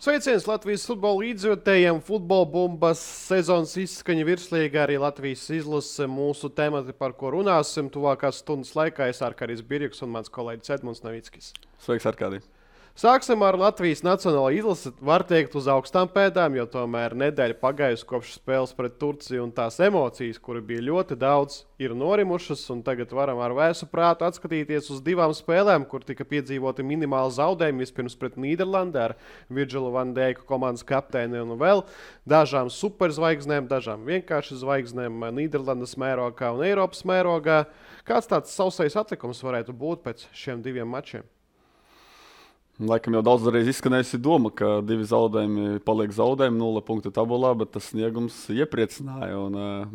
Sveiciens Latvijas futbola līdzjūtējiem, futbola bumbas sezonas izskaņa virslīgā, arī Latvijas izlase mūsu temati, par ko runāsim. Tuvākās stundas laikā es Arkādijs Birjuks un mans kolēģis Edmunds Navickis. Sveiks, Arkādij! Sāksim ar Latvijas nacionālo izlasi, var teikt, uz augstām pēdām, jo tomēr nedēļa pagājusi kopš spēles pret Turciju un tās emocijas, kuri bija ļoti daudz, ir norimušas. Un tagad varam ar vēsu prātu atskatīties uz divām spēlēm, kur tika piedzīvoti minimāli zaudējumi. Vispirms pret Nīderlandi ar Virģilu van Deiku komandas kapteini un vēl dažām superzvaigznēm, dažām vienkārši zvaigznēm Nīderlandes mērogā un Eiropas mērogā. Kāds tāds sausais atlikums varētu būt pēc šiem diviem mačiem? Laikam jau daudzreiz izskanējusi doma, ka divi zaudējumi paliek zaudējumi, 0 punktu tabulā, bet tas sniegums iepriecināja.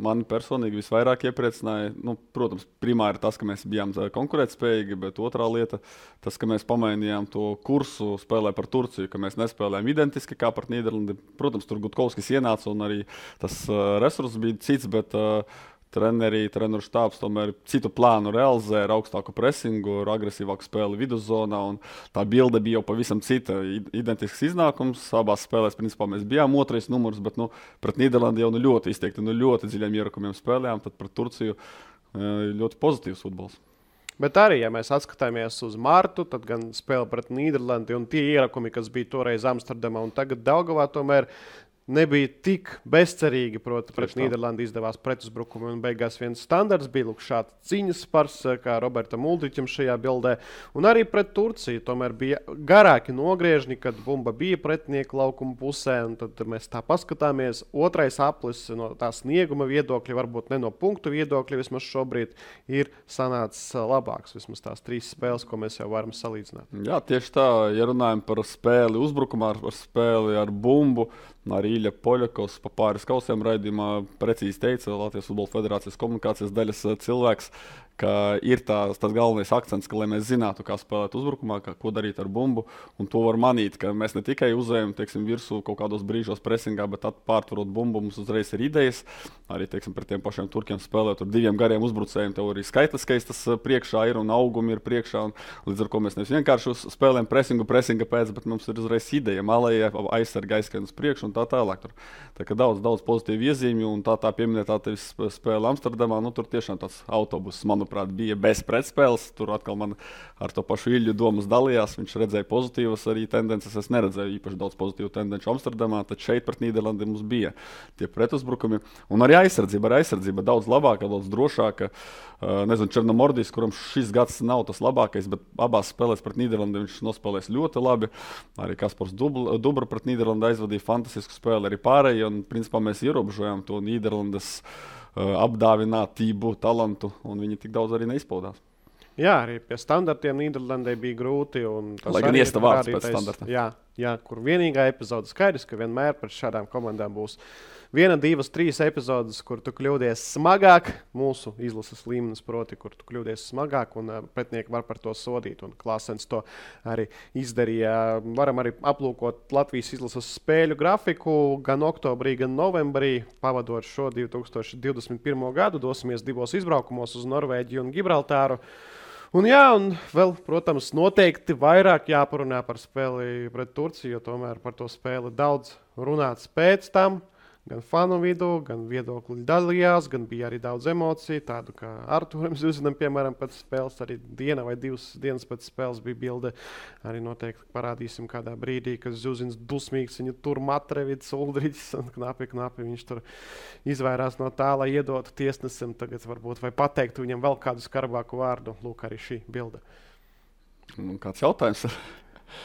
Mani personīgi visvairāk iepriecināja. Protams, primāri tas, ka mēs bijām konkurētspējīgi, bet otrā lieta, tas, ka mēs pamainījām to kursu spēlē par Turciju, ka mēs nespēlējām identiski kā par Nīderlandi. Protams, tur Gutkovskis ienāca un arī tas resurss bija cits, bet treneru štābs tomēr citu plānu realizē ar augstāku presingu, ar agresīvāku spēli viduszonā. Tā bilde bija jau pavisam cita. Identisks iznākums. Abās spēlēs principā mēs bijām otrais numurs, bet pret Nīderlandi jau ļoti izteikti, ļoti dziļiem ierakumiem spēlējām. Tad pret Turciju ļoti pozitīvs futbols. Bet arī, ja mēs atskatāmies uz martu, tad gan spēle pret Nīderlandi un tie ierakumi, kas bija toreiz Amsterdamā un tagad Daugavā, tomēr nebija tik bezcerīgi, proti, pret Nīderlandi izdevās pretuzbrukumi un beigās viens standarts bija šāds ciņas spars, kā Robertam Uldriķam šajā bildē. Un arī pret Turciju tomēr bija garāki nogriežņi, kad bumba bija pretinieku laukuma pusē, un tad mēs tā paskatāmies. Otrais aplis no tā snieguma viedokļa, varbūt ne no punktu viedokļa, vismaz šobrīd ir sanācis labāks, vismaz tās 3 spēles, ko mēs jau varam salīdzināt. Jā, tieši tā, ja runājam par spēli uzbrukumā, par spēli ar bumbu, arī Ilja Poļakovs pa pāris kausiem raidījumā precīzi teica, Latvijas Futbola Federācijas komunikācijas daļas cilvēks, ka ir tas galvenais akcents, ka, lai mēs zinātu, kā spēlēt uzbrukumā, ko darīt ar bumbu, un to var manīt, ka mēs ne tikai uzējam, virsū kaut kādos brīžos presingā, bet pārtvarot bumbu, mums uzreiz ir idejas. Arī, pret tiem pašiem turkiem spēlēt ar 2 gariem uzbrucējiem, tev arī skaitliskais tas priekšā ir un augumi ir priekšā, un līdz ar ko mēs nevis vienkārši spēlējam presinga pēc, bet mums ir uzreiz ideja, malējie aizsarga aizskrien uz priekšu un tā tālāk. Tā kā daudz pozitīvu iezīmju, un tā pieminētā tevis spēle Amsterdamā, tur tiešām tāds autobuss, manuprāt, bija bez pretspēles. Tur atkal man ar to pašu Ilju domas dalījās. Viņš redzēja pozitīvas arī tendences. Es neredzēju īpaši daudz pozitīvu tendenci Amsterdamā, tad šeit pret Nīderlandi mums bija tie pretuzbrukumi. Un arī aizsardzība daudz labāka, daudz drošāka. Nezinu, Černomordijs, kuram šis gads nav tas labākais, bet abās spēlēs pret Nīderlandi viņš nospēlēs ļoti labi. Arī Kaspars Dubra pret Nīderlandi aizvadīja fantastisku spēli, arī pārējie. Un principā mēs ierobežojām to Nīderlandes apdāvinātību, talantu, un viņi tik daudz arī neizpaudās. Jā, arī pie standartiem Nīderlandē bija grūti. Lai gan iesta vārds pēc standarta. Jā, kur vienīgā epizode skaidrs, ka vienmēr pret šādām komandām būs 1, 2, 3 epizodes, kur tu kļūdies smagāk, mūsu izlases līmenis, proti, kur tu kļūdies smagāk, un pretinieki var par to sodīt. Un Klāsens to arī izdarīja. Varam arī aplūkot Latvijas izlases spēļu grafiku gan oktobrī, gan novembrī, pavadot šo 2021. gadu. Dosimies 2 izbraukumos uz Norvēģiju un Gibraltāru. Un vēl, protams, noteikti vairāk jāparunā par spēli pret Turciju, jo tomēr par to spēli daudz runāts pēc tam. Gan fanu vidū, gan viedokļi dalījās, gan bija arī daudz emociju. Tādu kā Artūram Zuzinam, piemēram, pēc spēles, arī diena vai 2 dienas pēc spēles bija bilde. Arī noteikti parādīsim kādā brīdī, ka Zuzins dusmīgs, viņu tur Matrevids, Uldriķis un knapi viņš tur izvairās no tā, lai iedotu tiesnesim tagad varbūt vai pateiktu viņam vēl kādu skarbāku vārdu. Lūk, arī šī bilde. Kāds jautājums?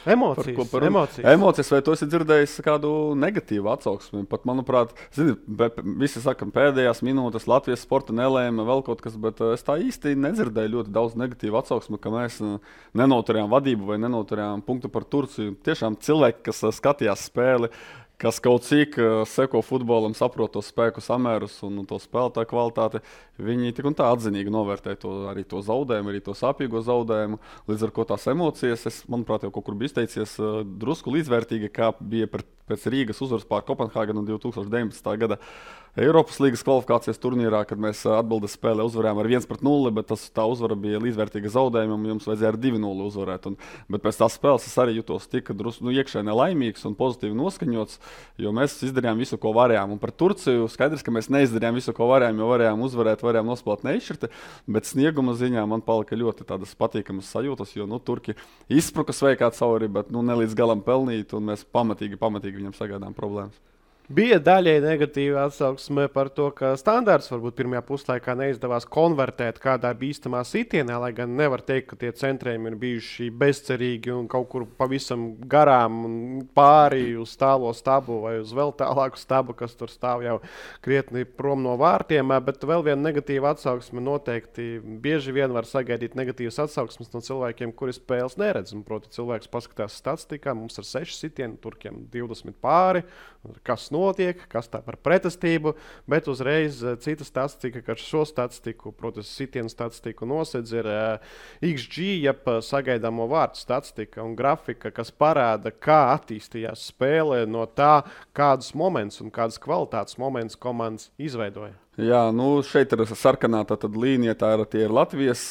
Emocijas. Vai tu esi dzirdējis kādu negatīvu atsauksmi? Pat, manuprāt, visi saka, pēdējās minūtes Latvijas sporta nelēma vēl kaut kas, bet es tā īsti nedzirdēju ļoti daudz negatīvu atsauksmi, ka mēs nenoturējām vadību vai nenoturējām punktu par Turciju. Tiešām cilvēki, kas skatījās spēli, kas kaut cik seko futbolam, saprot to spēku samērus un to spēlētāju kvalitāti, viņi tik un tā atzinīgi novērtē arī to zaudējumu, arī to sāpīgo zaudējumu. Līdz ar ko tās emocijas, manuprāt, jau kaut kur bija izteicies drusku līdzvērtīgi, kā bija pēc Rīgas uzvaras pār Kopenhāgenu 2019. gada Eiropas līgas kvalifikācijas turnīrā, kad mēs atbildes spēlē uzvarējām ar 1-0, bet tā uzvara bija līdzvērtīga zaudējumam, un jums vajadzēja ar 2-0 uzvarēt. Bet pēc tās spēles es arī jutos tik iekšēji nelaimīgs un pozitīvi noskaņots, jo mēs izdarījām visu, ko varējām. Un par Turciju skaidrs, ka mēs neizdarījām visu, ko varējām, jo varējām uzvarēt, varējām nospēlēt neizšķirti, bet snieguma ziņā man palika ļoti tādas patīkamas sajūtas, jo Turki izspruka sveikā cauri, bet ne līdz galam pelnīt, un mēs pamatīgi viņam sagaidām problēmas. Bija daļai negatīva atsauksme par to, ka standārts varbūt pirmajā puslaikā neizdevās konvertēt kādā bīstamā sitienā, lai gan nevar teikt, ka tie centrējumi ir bijuši bezcerīgi un kaut kur pavisam garām un pāri uz tālo stabu vai uz vēl tālāku stabu, kas tur stāv jau krietni prom no vārtiem. Bet vēl viena negatīva atsauksme noteikti bieži vien var sagaidīt negatīvas atsauksmes no cilvēkiem, kuri spēles neredz. Un, proti, cilvēks paskatās statistikā, mums ir 6 sitieni, Turkiem 20 pāri, kas notiek, kas tā par pretestību, bet uzreiz cita statistika, ka šo statistiku, protams, sitienu statistiku nosedz ir XG, jeb sagaidāmo vārtu statistika un grafika, kas parāda, kā attīstījās spēle no tā, kādus momentus un kādas kvalitātes momentus komandas izveidoja. Jā, šeit ir sarkanā līnija, tie ir Latvijas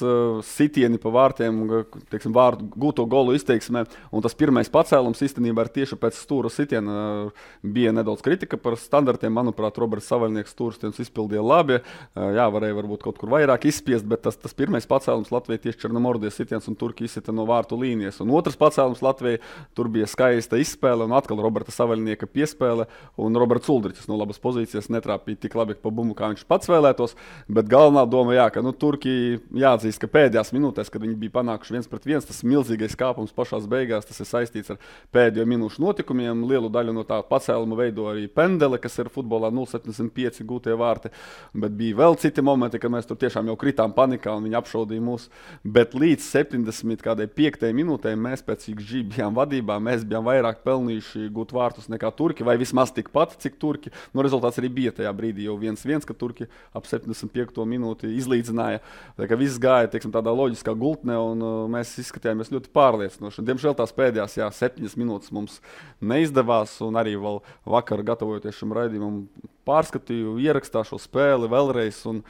sitieni pa vārtiem, teiksim, vārtu gūto golu izteiksmē, un tas pirmais pacēlums īstenībā ir tieši pēc stūra sitiena. Bija nedaudz kritika par standartiem, manuprāt, Roberts Savaļnieks stūrstienus izpildīja labi, jā, varēja varbūt kaut kur vairāk izspiest, bet tas pirmais pacēlums Latvijai tieši Černomordijas sitiens un Turki izsita no vārtu līnijas, un otrs pacēlums Latvijai, tur bija skaista izspēle, un atkal Roberta Savaļnieka piespēle, un Roberts Uldriķis no labas pozīcijas netrāpīja tik labi pa bumbu, kā viņš pats vēlētos, bet galvenā doma, ka Turki jāatzīst, ka pēdējās minūtēs, kad viņi bija panākuši 1-1, tas milzīgais kāpums pašās beigās, tas ir saistīts ar pēdējo minūšu notikumiem. Lielu daļu no tā pacēluma veido arī pendele, kas ir futbolā 0,75 gūtie vārti, bet bija vēl citi momenti, kad mēs tur tiešām jau kritām panikā un viņi apšaudīja mūs, bet līdz 75. minūtē mēs pēc XG bijām vadībā, mēs bijām vairāk pelnījuši gūt vārtus nekā Turki, vai vismaz tikpat, cik Turki. Rezultāts arī bija tajā brīdī jau 1-1, ka Turki ap 75. minūti izlīdzināja. Tā kā viss gāja, teiksim, tādā loģiskā gultnē, un mēs izskatījāmies ļoti pārliecinoši. Diemžēl tās pēdējās 7 minūtes mums neizdevās, un arī vēl vakar, gatavojoties šim raidījumam, pārskatīju ierakstā šo spēli vēlreiz, un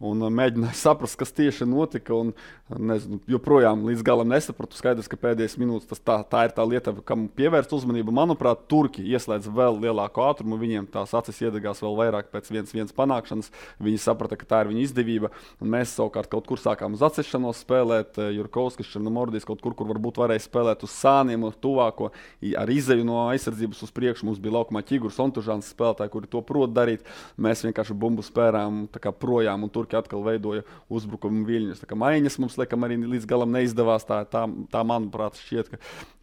mēģināju saprast, kas tieši notika. Nezinu, joprojām līdz galam nesapratu. Skaidrs, ka pēdējās minūtes tā ir tā lieta, kam pievērst uzmanību. Manuprāt, Turki ieslēdz vēl lielāku ātrumu. Viņiem tās acis iedegās vēl vairāk pēc 1-1 panākšanas. Viņi saprata, ka tā ir viņa izdevība. Un mēs savukārt kaut kur sākām uz atsešanos spēlēt. Jurkovskis, Černomordijs kaut kur varbūt varēja spēlēt uz sāniem, uz tuvāko. Ar izeju no aizsardzības uz priekšu mums bija laukumā Ķigurs, Ontužāns spēlētāji, kuri to prot darīt. Mēs vienkārši bumbu spērām projām, un Turki atkal veidoja uzbrukumu viļņus. Tā kā maiņas mums laikam arī līdz galam neizdevās. Tā manuprāt, šķiet, ka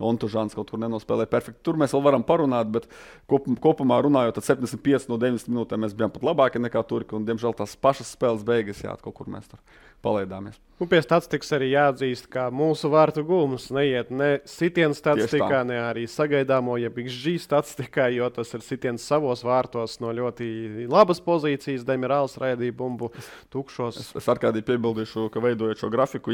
Ontužāns kaut kur nenospēlēja perfekti. Tur mēs vēl varam parunāt, bet kopumā runājot, tad 75 no 90 minūtēm mēs bijām pat labāki nekā Turki, un diemžēl tās pašas spēles beigas, kaut kur mēs tur palaidāmies. Un pie statistikas arī jāatzīst, ka mūsu vārtu gūmus neiet ne sitienu statistikā, ne arī sagaidāmo, jeb XG statistikā, jo tas ir sitiens savos vārtos no ļoti labas pozīcijas. Demirāls raidīja bumbu tukšos. Es ar kādī piebildīšu, ka veidojot šo grafiku,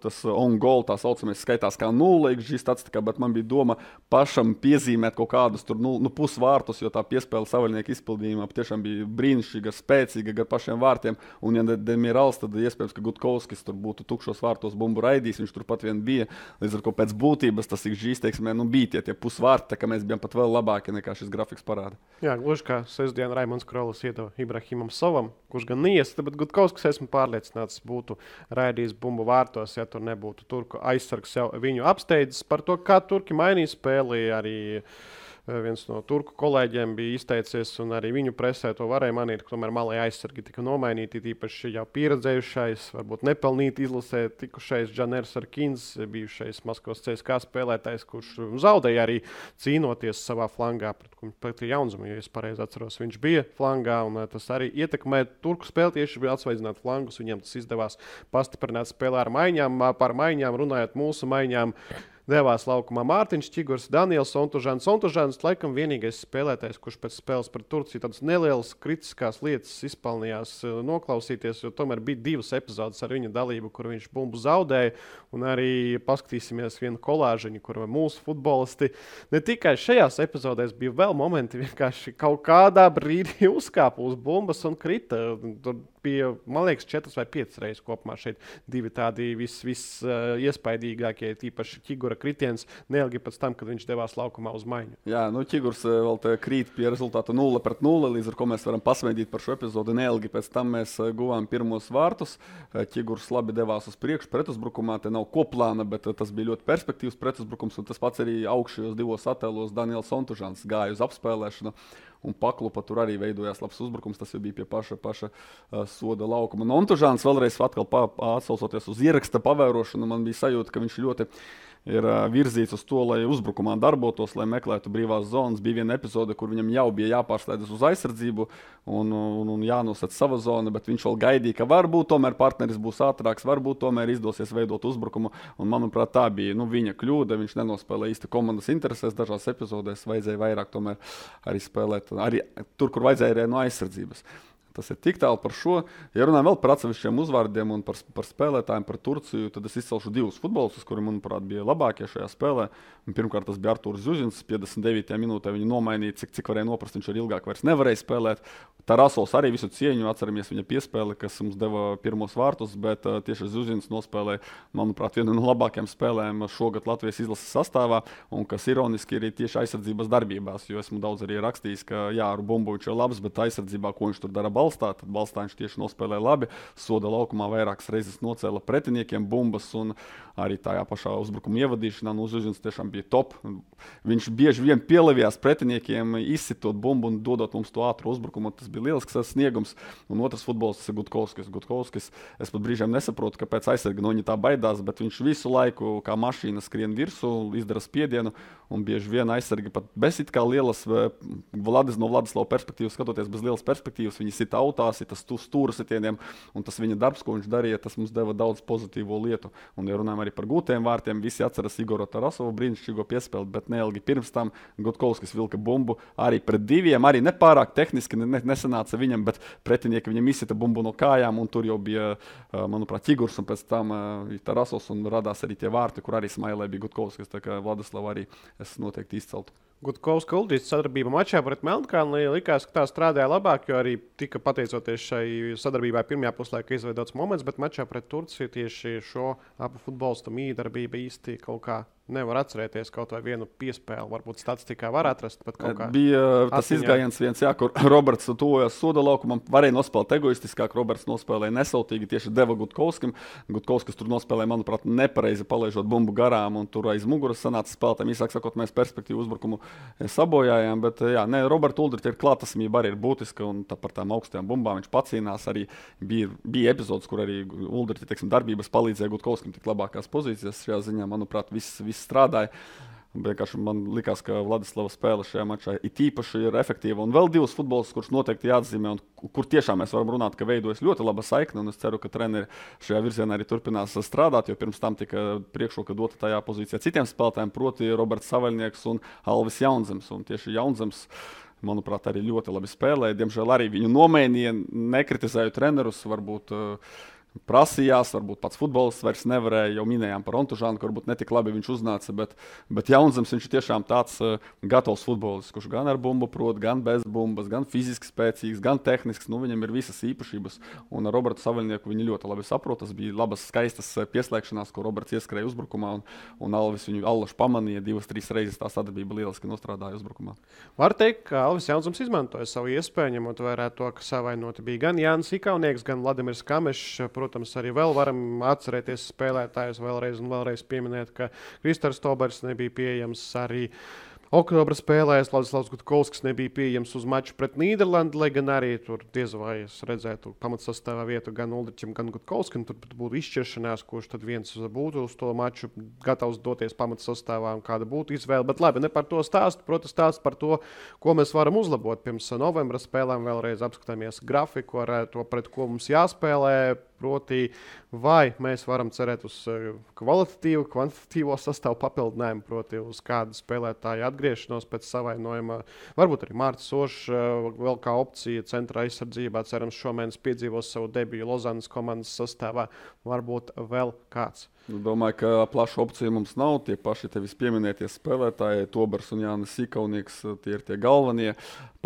tas on goal, tā saucamais, skaitās kā 0 XG statistikā, bet man bija doma pašam piezīmēt kaut kādus tur pusvārtus, jo tā piespēle Savaļnieka izpildījumā tiešām bija brīnišķīga, spēcīga gar pašiem vārtiem, un ja Demirāls, tad iespējams, ka Gutkovskis tur būtu tukšos vārtos bumbu raidījis, viņš turpat vien bija. Līdz ar ko pēc būtības tas XG izteiksmē bija tie pusvārti, tā kā mēs bijām pat vēl labāki nekā šis grafiks parāda. Jā, gluži kā sestdien Raimonds Krolis iedeva Ibrahimam Sovam, kurš gan neiesta, bet Gutkovskis, esmu pārliecināts, būtu raidījis bumbu vārtos, ja tur nebūtu Turku aizsargs jau viņu apsteidzis. Par to, kā Turki mainīja spēli, arī viens no turku kolēģiem bija izteicies, un arī viņu presē to varēja manīt, ka tomēr malai aizsargi tika nomainīti, tīpaši jau pieredzējušais, varbūt nepelnīti izlasē tikušais Džaners Arkins, bijušais Maskavas CSKA spēlētājs, kurš zaudēja arī cīnoties savā flangā pret Jaunzumu, ja es pareizi atceros, viņš bija flangā, un tas arī ietekmē turku spēli, tieši bija atsvaidzināt flangus, viņam tas izdevās pastiprināt spēlē ar maiņām, par maiņām runājot mūsu maiņām. devās laukumā Mārtiņš Čigurs, Daniels Sontužāns. Sontužāns laikam vienīgais spēlētājs, kurš pēc spēles par Turciju tādas nelielas kritiskās lietas izpelnījās noklausīties, jo tomēr bija 2 epizodes ar viņa dalību, kur viņš bumbu zaudēja. Un arī paskatīsimies vienu kolāžiņu, kur mūsu futbolisti ne tikai šajās epizodēs bija vēl momenti, vienkārši kaut kādā brīdī uzkāpa uz bumbas un krita. Tur bija, man liekas, 4 vai 5 reizes kopumā šeit 2 tādi iespaidīgākie, tīpaši Čigura kritiens, neilgi pēc tam, kad viņš devās laukumā uz maiņu. Jā, Čigurs vēl krīt pie rezultātu 0-0, līdz ar ko mēs varam pasmaidīt par šo epizodu. Neilgi pēc tam mēs guvām pirmos vārtus. Čigurs labi devās uz priekšu pretuzbrukumā, te nav koplāna, bet tas bija ļoti perspektīvs pretuzbrukums, un tas pats arī augšējos 2 attēlos Daniels Sontužāns gāja uz apspēlēšanu. Un paklupa tur arī veidojās labs uzbrukums. Tas jau bija pie paša soda laukuma. Un Ontužāns vēlreiz atsaucoties uz ieraksta pavērošanu, man bija sajūta, ka viņš ļoti ir virzīts uz to, lai uzbrukumā darbotos, lai meklētu brīvās zonas. Bija viena epizode, kur viņam jau bija jāpārslēdzas uz aizsardzību un jānosaka sava zona, bet viņš vēl gaidīja, ka varbūt tomēr partneris būs ātrāks, varbūt tomēr izdosies veidot uzbrukumu. Un, manuprāt, tā bija viņa kļūda. Viņš nenospēlēja īsti komandas interesēs. Dažās epizodēs vajadzēja vairāk tomēr arī spēlēt arī tur, kur vajadzēja arī no aizsardzības. Tas ir tik tālu par šo. Ja runājam vēl par atsevišķiem uzvārdiem un par spēlētājiem, par Turciju, tad es izcelšu 2 futbolistus, kuri, manuprāt, bija labākie šajā spēlē. Pirmkārt, tas bija Artūrs Zuzins. 59. minūtē viņu nomainīja, cik varēja noprast, viņš arī ilgāk vairs nevarēja spēlēt. Tarasovs arī visu cieņu, atceramies viņa piespēli, kas mums deva pirmos vārtus, bet tieši Zuzins nospēlēja, manuprāt, vienu no labākajām spēlēm šogad Latvijas izlases sastāvā, un kas ironiski arī tieši aizsardzības darbībās, jo esmu daudz arī rakstījis, ka jā, ar bumbu viņš ir labs, bet aizsardzībā, ko viņš tur dara balstā, tad balstā viņš tieši nospēlēja labi, soda laukumā vairākas reizes nocēla pretiniekiem bumbas, un arī tajā pašā uzbrukuma ievadīšanā Zuzins tiešām bija top. Viņš bieži vien pielevījās pretiniekiem, izsitot bumbu un dodot mums to ātru uzbrukumu. Tas bija lielisks sniegums. Un otrs futbolists ir Gutkovskis. Es pat brīžiem nesaprotu, kāpēc aizsargi no viņa tā baidās, bet viņš visu laiku kā mašīna skrien virsū, izdara spiedienu, un bieži vien aizsargi pat bez it kā lielas, no Vladislava perspektīvas skatoties, bez lielas perspektīvas, viņi sit autās, ir tas stūra sitieniem, un tas viņa darbs, ko viņš darīja, tas mums deva daudz pozitīvo lietu. Un, ja runājam arī par gūtiem vārtiem, visi atceras Igoru Tarasovu brīnišķīgo piespēli, bet neilgi pirms tam Gutkovskis vilka bumbu arī pret 2, arī nepārāk tehniski nesanāca viņam, bet pretinieki viņam izsita bumbu no kājām, un tur jau bija, manuprāt, Čigurs, un pēc tam Tarasovs, un radās arī tie vārti, kur arī smailē bija Gutkovskis, tā kā Vladislava arī es noteikti izceltu. Gutkovska Uldrīts sadarbība mačā pret Melnkalni likās, ka tā strādāja labāk, jo arī tika pateicoties šai sadarbībai pirmajā puslaikā izveidots moments, bet mačā pret Turciju tieši šo abu futbolistu mīdarbība īsti kaut kā nevar atcerēties, kaut vai vienu piespēli. Varbūt statistikā var atrast, bet kaut kā. Bija tas izgājiens viens, jā, kur Roberts tuvojās soda laukumam, varēja nospēlēt egoistiskāk, Roberts nospēlēja nesautīgi, tieši deva Gutkovskim. Gutkovskis tur nospēlēja, manuprāt, nepareizi palaižot bumbu garām, un tur aiz muguras sanāca spēlētājiem. Īsāk sakot, mēs perspektīvu uzbrukumu sabojājām, bet jā, Roberta Uldrita ir klātesamība arī ir būtiska, un tā par tām augstajām bumbām viņš pacīnās. Arī bija epizodes, kur arī Uldrita, darbības palīdzēja Gutkovskim tik labākās pozīcijas. Šajā ziņā, manuprāt, viss strādāja. Vienkārši man likās, ka Vladislava spēle šajā mačā it īpaši ir efektīva. Un vēl 2 futbolistus, kurus noteikti jāatzīmē, un kur tiešām mēs varam runāt, ka veidojas ļoti laba saikne. Un es ceru, ka treneri šajā virzienā arī turpinās strādāt, jo pirms tam tika priekšroka dota tajā pozīcijā citiem spēlētājiem, proti Roberts Savaļnieks un Alvis Jaunzems. Un tieši Jaunzems, manuprāt, arī ļoti labi spēlēja. Diemžēl arī viņu nomainīja, nekritizēju trenerus, varbūt prasījās, varbūt pats futbolists vairs nevarēja, jau minējām par Ontužānu, ka varbūt netik labi viņš uznāca, bet Jaunzems viņš ir tiešām tāds gatavs futbolists, kurš gan ar bumbu prot, gan bez bumbas, gan fiziski spēcīgs, gan tehnisks, viņam ir visas īpašības, un ar Robertu Savaļnieku viņi ļoti labi saprot, tas bija labas, skaistas pieslēgšanās, ko Roberts ieskrēja uzbrukumā, un Alvis viņu allaši pamanīja 2-3 reizes, tā sadarbība lieliski nostrādāja uzbrukumā. Var teikt, ka Alvis Jaunzems izmantoja savu iespēju, ņemot vērā to, ka savainoti bija gan Jānis Ikaunieks, gan Vladimirs Kamešs. Protams, arī vēl varam atcerēties spēlētājus vēlreiz un vēlreiz pieminēt, ka Kristers Tobers nebija pieejams arī oktobra spēlēs. Vladislavs Gutkovskis nebija pieejams uz maču pret Nīderlandi, lai gan arī tur diez vai es redzētu pamatsastāvā vietu gan Uldričam, gan Gutkovskim. Tur būtu izšķiršanās, kurš tad viens būtu uz to maču gatavs doties pamatsastāvā un kāda būtu izvēle. Bet labi, ne par to stāstu, protams, stāst par to, ko mēs varam uzlabot pirms novembra spēlēm. Vēlreiz apskatāmies grafiku ar to, pret ko mums jāspēlē. proti, vai mēs varam cerēt uz kvalitatīvu, kvantitatīvo sastāvu papildinājumu, proti uz kādu spēlētāju atgriešanos pēc savainojuma. Varbūt arī Mārcis Ošs vēl kā opcija centra aizsardzībā, cerams, šomēnes piedzīvos savu debiju Lozanas komandas sastāvā, varbūt vēl kāds. Domāju, ka plaša opcija mums nav. Tie paši tevis pieminētie spēlētāji, Tobers un Jānis Sīkaunieks, tie ir tie galvenie.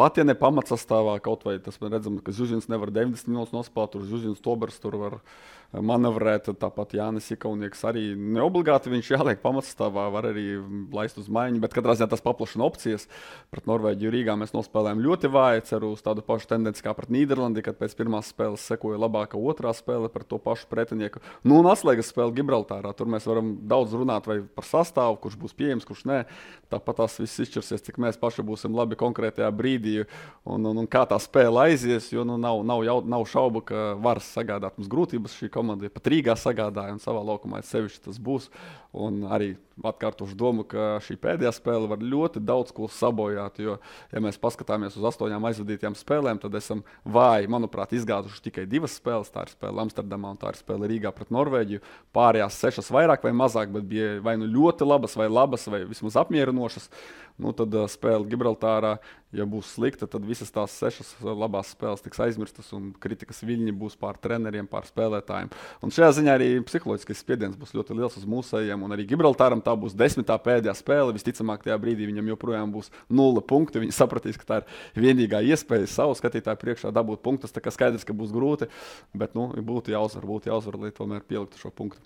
Pat ja ne pamatsastāvā, kaut vai tas mēs redzam, ka Zuzins nevar 90 minūtes nospēlēt, tur Zuzins Tobers tur var manevrēt, tāpat Jānis Sīkaunieks arī neobligāti viņš jāliek pamatsastāvā, var arī laist uz maiņu, bet katrā ziņā tas paplašina opcijas. Pret Norvēģiju Rīgā mēs nospēlējām ļoti vāji, ceru uz tādu pašu tendenci kā pret Nīderlandi, kad pēc pirmās spēles sekoja labāka otrā spēle pret to pašu pretinieku. Nu, un atslēgas spēle Gibraltārā. Tur mēs varam daudz runāt vai par sastāvu, kurš būs pieejams, kurš nē. Tāpat tās viss izšķirsies, cik mēs paši būsim labi konkrētajā brīdī un kā tā spēle aizies, jo nav šaubu, ka var sagādāt mums grūtības šī komanda. Pat Rīgā sagādāja un savā laukumā sevišķi tas būs. Un arī atkārtošu domu, ka šī pēdējā spēle var ļoti daudz ko sabojāt, jo, ja mēs paskatāmies uz 8 aizvadītajām spēlēm, tad esam vāji, manuprāt, izgāzuši tikai 2 spēles. Tā ir spēle Amsterdamā un tā ir spēle Rīgā pret Norvēģiju. Pārējās 6 vairāk vai mazāk, bet bija vai nu ļoti labas, vai vismaz apmierinošas. Nu, tad spēle Gibraltārā, ja būs slikta, tad visas tās 6 labās spēles tiks aizmirstas un kritikas viļņi būs pār treneriem, pār spēlētājiem. Un šajā ziņā arī psiholoģiskais spiediens būs ļoti liels uz mūsējiem, un arī Gibraltāram tā būs 10. pēdējā spēle. Visticamāk, tajā brīdī viņam joprojām būs 0 punkti. Viņi sapratīs, ka tā ir vienīgā iespēja savu skatītāju priekšā dabūt punktus. Tā kā skaidrs, ka būs grūti, bet būtu jāuzvar, lai tomēr pieliktu šo punktu.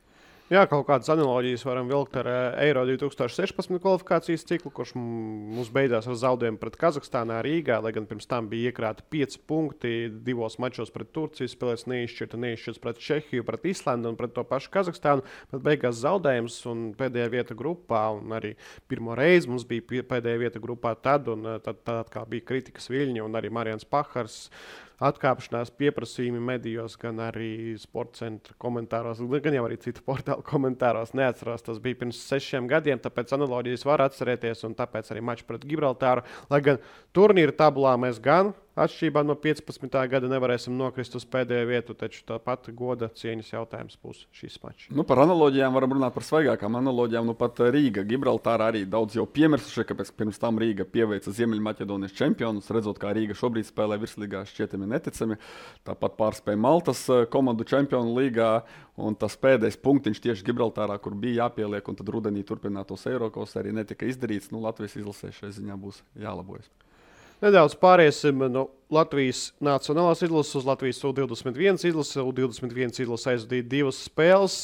Jā, kaut kādas analoģijas varam vilkt ar Eiro 2016 kvalifikācijas ciklu, kurš mums beidzās ar zaudējumu pret Kazahstānā Rīgā, lai gan pirms tam bija iekrāti 5 punkti 2 mačos pret Turciju, spēlēs neizšķirts pret Čehiju, pret Islandu un pret to pašu Kazahstānu, bet beigās zaudējums un pēdējā vieta grupā, un arī pirmo reizi mums bija pēdējā vieta grupā tad kā bija kritikas viļņi, un arī Marians Pahars atkāpšanās pieprasījumi medijos, gan arī sporta centra komentāros, gan jau arī citu portālu komentāros. Neatceros, tas bija pirms 6 gadiem, tāpēc analoģijas var atcerēties, un tāpēc arī mačs pret Gibraltāru. Lai gan turnīra tabulā mēs gan atšķirībā no 15. gada nevarēsim nokrist uz pēdējo vietu, taču tāpat goda cieņas jautājums būs šis mačs. Par analoģijām varam runāt par svaigākām analoģijām. Pat Rīga, Gibraltāra arī daudz jau piemirsuši, kāpēc pirms tam Rīga pieveica Ziemeļmaķedonijas čempionus, redzot, kā Rīga šobrīd spēlē virslīgā, šķietami neticami. Tāpat pārspēja Maltas komandu čempionu līgā, un tas pēdējais punktiņš tieši Gibraltārā, kur bija jāpieliek, un tad rudenī turpinātos Eirokos arī netika izdarīts. Latvijas izlasē šai ziņā būs jālabojas. Nedaudz pāriesim no Latvijas nacionālās izlases uz Latvijas U21 izlasi. U21 izlase aizvadīja 2 spēles.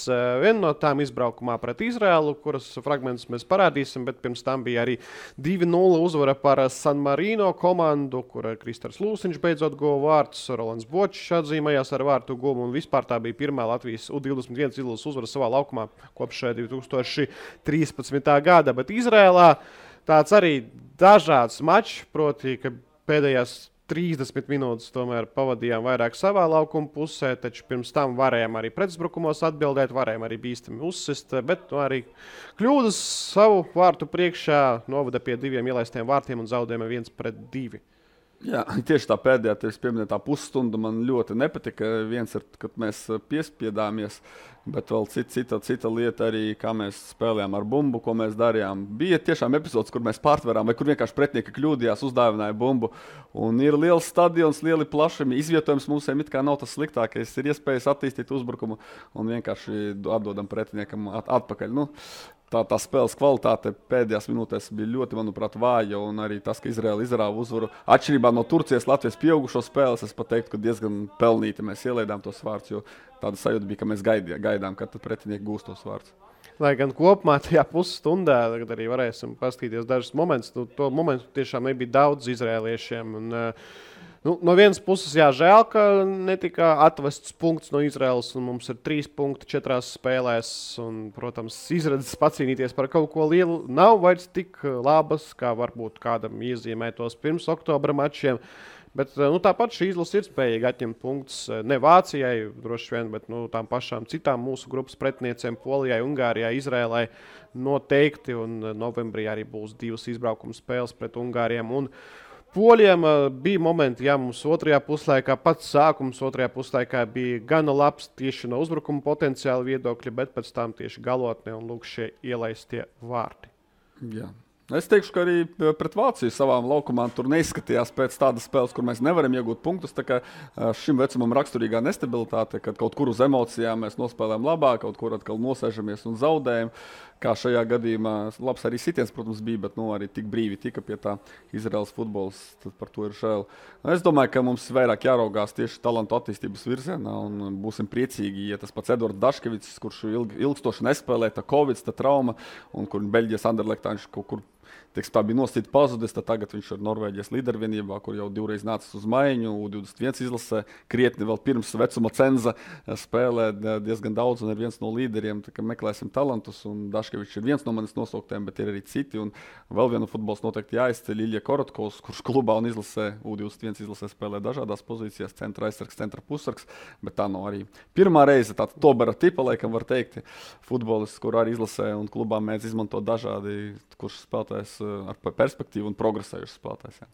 Viena no tām izbraukumā pret Izraēlu, kuras fragmentus mēs parādīsim, bet pirms tam bija arī 2-0 uzvara par San Marino komandu, kur Kristers Lūsiņš beidzot guva vārtus. Rolands Bočs atzīmējās ar vārtu guvumu, un vispār tā bija pirmā Latvijas U21 izlases uzvara savā laukumā kopš 2013. gada. Bet Izraēlā tāds arī dažāds mačs, proti, ka pēdējās 30 minūtes tomēr pavadījām vairāk savā laukuma pusē, taču pirms tam varējām arī pretuzbrukumos atbildēt, varējām arī bīstami uzsist, bet arī kļūdas savu vārtu priekšā novada pie 2 ielaistiem vārtiem un zaudējuma 1-2. Jā, tieši tā pēdējā, tevis pieminētā pusstunda man ļoti nepatika. Viens ir, kad mēs piespiedāmies, bet vēl cita lieta arī, kā mēs spēlējām ar bumbu, ko mēs darījām. Bija tiešām epizodes, kur mēs pārtverām, vai kur vienkārši pretinieki kļūdījās, uzdāvināja bumbu. Un ir liels stadions, lieli plašumi, izvietojums mūsiem it kā nav tas sliktākais. Ir iespējas attīstīt uzbrukumu un vienkārši atdodam pretiniekam atpakaļ. Tā spēles kvalitāte pēdējās minūtēs bija ļoti, manuprāt, vāja, un arī tas, ka Izraēla izrāva uzvaru. Atšķirībā no Turcijas, Latvijas pieaugušo spēles, es pat teiktu, ka diezgan pelnīti mēs ielaidām tos vārdus, jo tāda sajūta bija, ka mēs gaidām, kad pretinieki gūst tos vārdus. Lai gan kopumā tajā pusstundā arī varēsim paskatīties dažus momentus, to momentu tiešām nebija daudz izrēliešiem. No vienas puses, žēl, ka netika atvests punkts no Izraēlas, un mums ir 3 punkti 4 spēlēs. Un, protams, izredzes pacīnīties par kaut ko lielu nav vairs tik labas, kā varbūt kādam iezīmētos pirms oktobra mačiem. Bet tāpat šī izlase ir spējīga atņemt punktus ne Vācijai, droši vien, bet tām pašām citām mūsu grupas pretiniecēm, Polijai, Ungārijai, Izraēlai noteikti. Un novembrī arī būs 2 izbraukuma spēles pret Ungāriem un Poļiem bija momenti, ja mums otrajā puslaikā, pats sākums otrajā puslaikā bija gana labs tieši no uzbrukuma potenciāla viedokļa, bet pēc tam tieši galotnē un lūk šie ielaistie vārti. Jā. Es teikšu, ka arī pret Vāciju savām laukumām tur neizskatījās pēc tādas spēles, kur mēs nevaram iegūt punktus. Tā kā šim vecumam raksturīgā nestabilitāte, kad kaut kur uz emocijām mēs nospēlējam labāk, kaut kur atkal nosēžamies un zaudējam. Kā šajā gadījumā labs arī sitiens, protams, bija, bet arī tik brīvi tika pie tā Izraels futbols. Tad par to ir žēl. Es domāju, ka mums vairāk jāraugās tieši talantu attīstības virzienā un būsim priecīgi, ja tas pats Edvards Daškevics, kurš ilgstoši nespēlē, tā Covid, tā trauma, un kur Beļģijas Anderlechtā viņš kaut kur tā bija nosacīta pazudis, tad tagad viņš ir Norvēģijas līdervienībā, kur jau divreiz nācis uz maiņu, U21 izlasē, krietni vēl pirms vecuma cenza spēlē diezgan daudz un ir viens no līderiem, tā kā meklēsim talantus, un Daškevičs ir viens no manis nosauktiem, bet ir arī citi, un vēl vienu futbols noteikti jāizceļ Ilja Korotkovs, kurš klubā un izlasē, U21 izlasē spēlē dažādās pozīcijās, centra aizsargs, centra pussargs, bet tā nav arī pirmā reize, tāda Tobera tipa, laikam var teikt, futbolists, kur arī izlasē un klubā mēdz izmantot dažādi, kurš spēlētājs ar perspektīvu un progresējuši spēlētājs.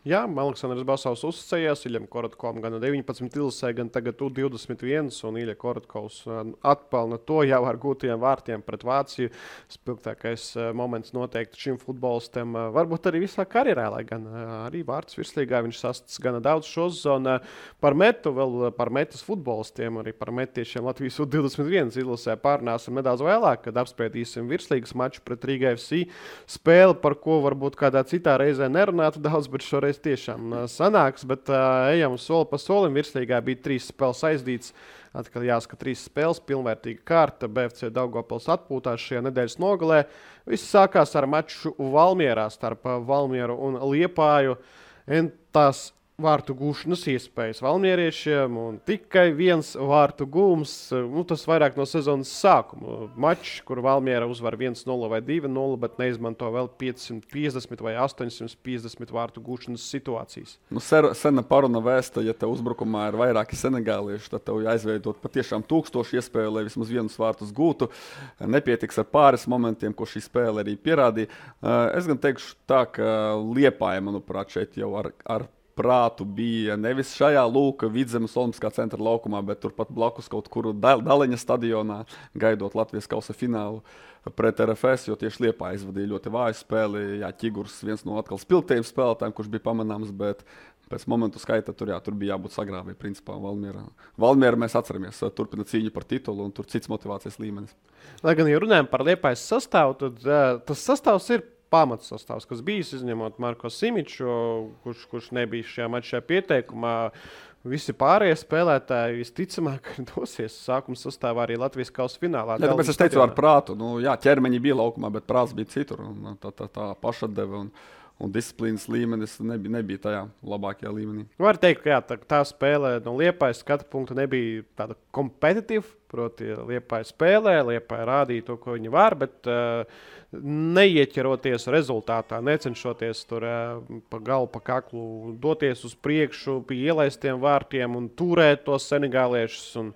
Jā, Aleksandrs Basovs uzticējās Iļam Korotkovam gan 19 izlasē, gan tagad U21, un Ilja Korotkovs atpelna to jau ar gūtajiem vārtiem pret Vāciju. Spilgtākais moments noteikti šim futbolistam, varbūt arī visā karjerā, lai gan arī vārds virslīgā viņš sastāv gana daudz šo sezonu. Par metu, vēl par metas futbolistiem, arī par metiešiem Latvijas U21 izlasē pārnāsim nedaudz vēlāk, kad apspriedīsim virslīgas maču pret Rīga FC spēli, par ko varbūt kādā citā reizē nerunātu daudz, bet šoreiz tiešām sanāks, bet ejam soli pa solim. Virslīgā bija 3 spēles aizdīts. Atkal jāsaka 3 spēles, pilnvērtīga kārta. BFC Daugavpils atpūtās šajā nedēļas nogalē. Viss sākās ar maču Valmierā starp Valmieru un Liepāju. Tās vārtu gūšanas iespējas valmieriešiem un tikai viens vārtu gūms. Tas vairāk no sezonas sākuma. Mačs, kur Valmiera uzvar 1-0 vai 2-0, bet neizmanto vēl 550 vai 850 vārtu gūšanas situācijas. Sena paruna vēsta, ja tev uzbrukumā ir vairāki senegālieši, tad tev jāizveidot patiešām 1000 iespēju, lai vismaz vienus vārtus gūtu. Nepietiks ar pāris momentiem, ko šī spēle arī pierādīja. Es gan teikšu tā, ka Liepāja, manuprāt, šeit jau ar prātu bija nevis šajā Vidzemes Olimpiskā centra laukumā, bet turpat blakus kaut kur Daliņa stadionā, gaidot Latvijas kausa finālu pret RFS, jo tieši Liepāja izvadīja ļoti vāju spēli. Jā, Ķigurs viens no atkal spilgtajiem spēlētājiem, kurš bija pamanāms, bet pēc momentu skaita tur bija jābūt sagrāvē, principā Valmiera mēs atceramies, turpina cīņu par titulu un tur cits motivācijas līmenis. Lai gan, ja runājam par Liepājas sastāvu, tad tas sastāvs ir pamats sastāvs, kas bijis, izņemot Marko Simiču, kurš nebija šajā mačā pieteikumā. Visi pārējie spēlētāji visticamāk dosies sākuma sastāvā arī Latvijas kausa finālā. Jā, tāpēc es teicu ar prātu. Jā, ķermeņi bija laukumā, bet prāts bija citur. Tā pašatdeve un disciplīnas līmenis nebija tajā labākajā līmenī. Var teikt, ka jā, tā spēle no Liepājas skatu punkta nebija tāda kompetitīva, proti Liepāja spēlē, Liepāja rādīja to, ko viņi var, bet neieķeroties rezultātā, necenšoties tur pa galu, pa kaklu doties uz priekšu pie ielaistiem vārtiem un turēt tos senegāliešus un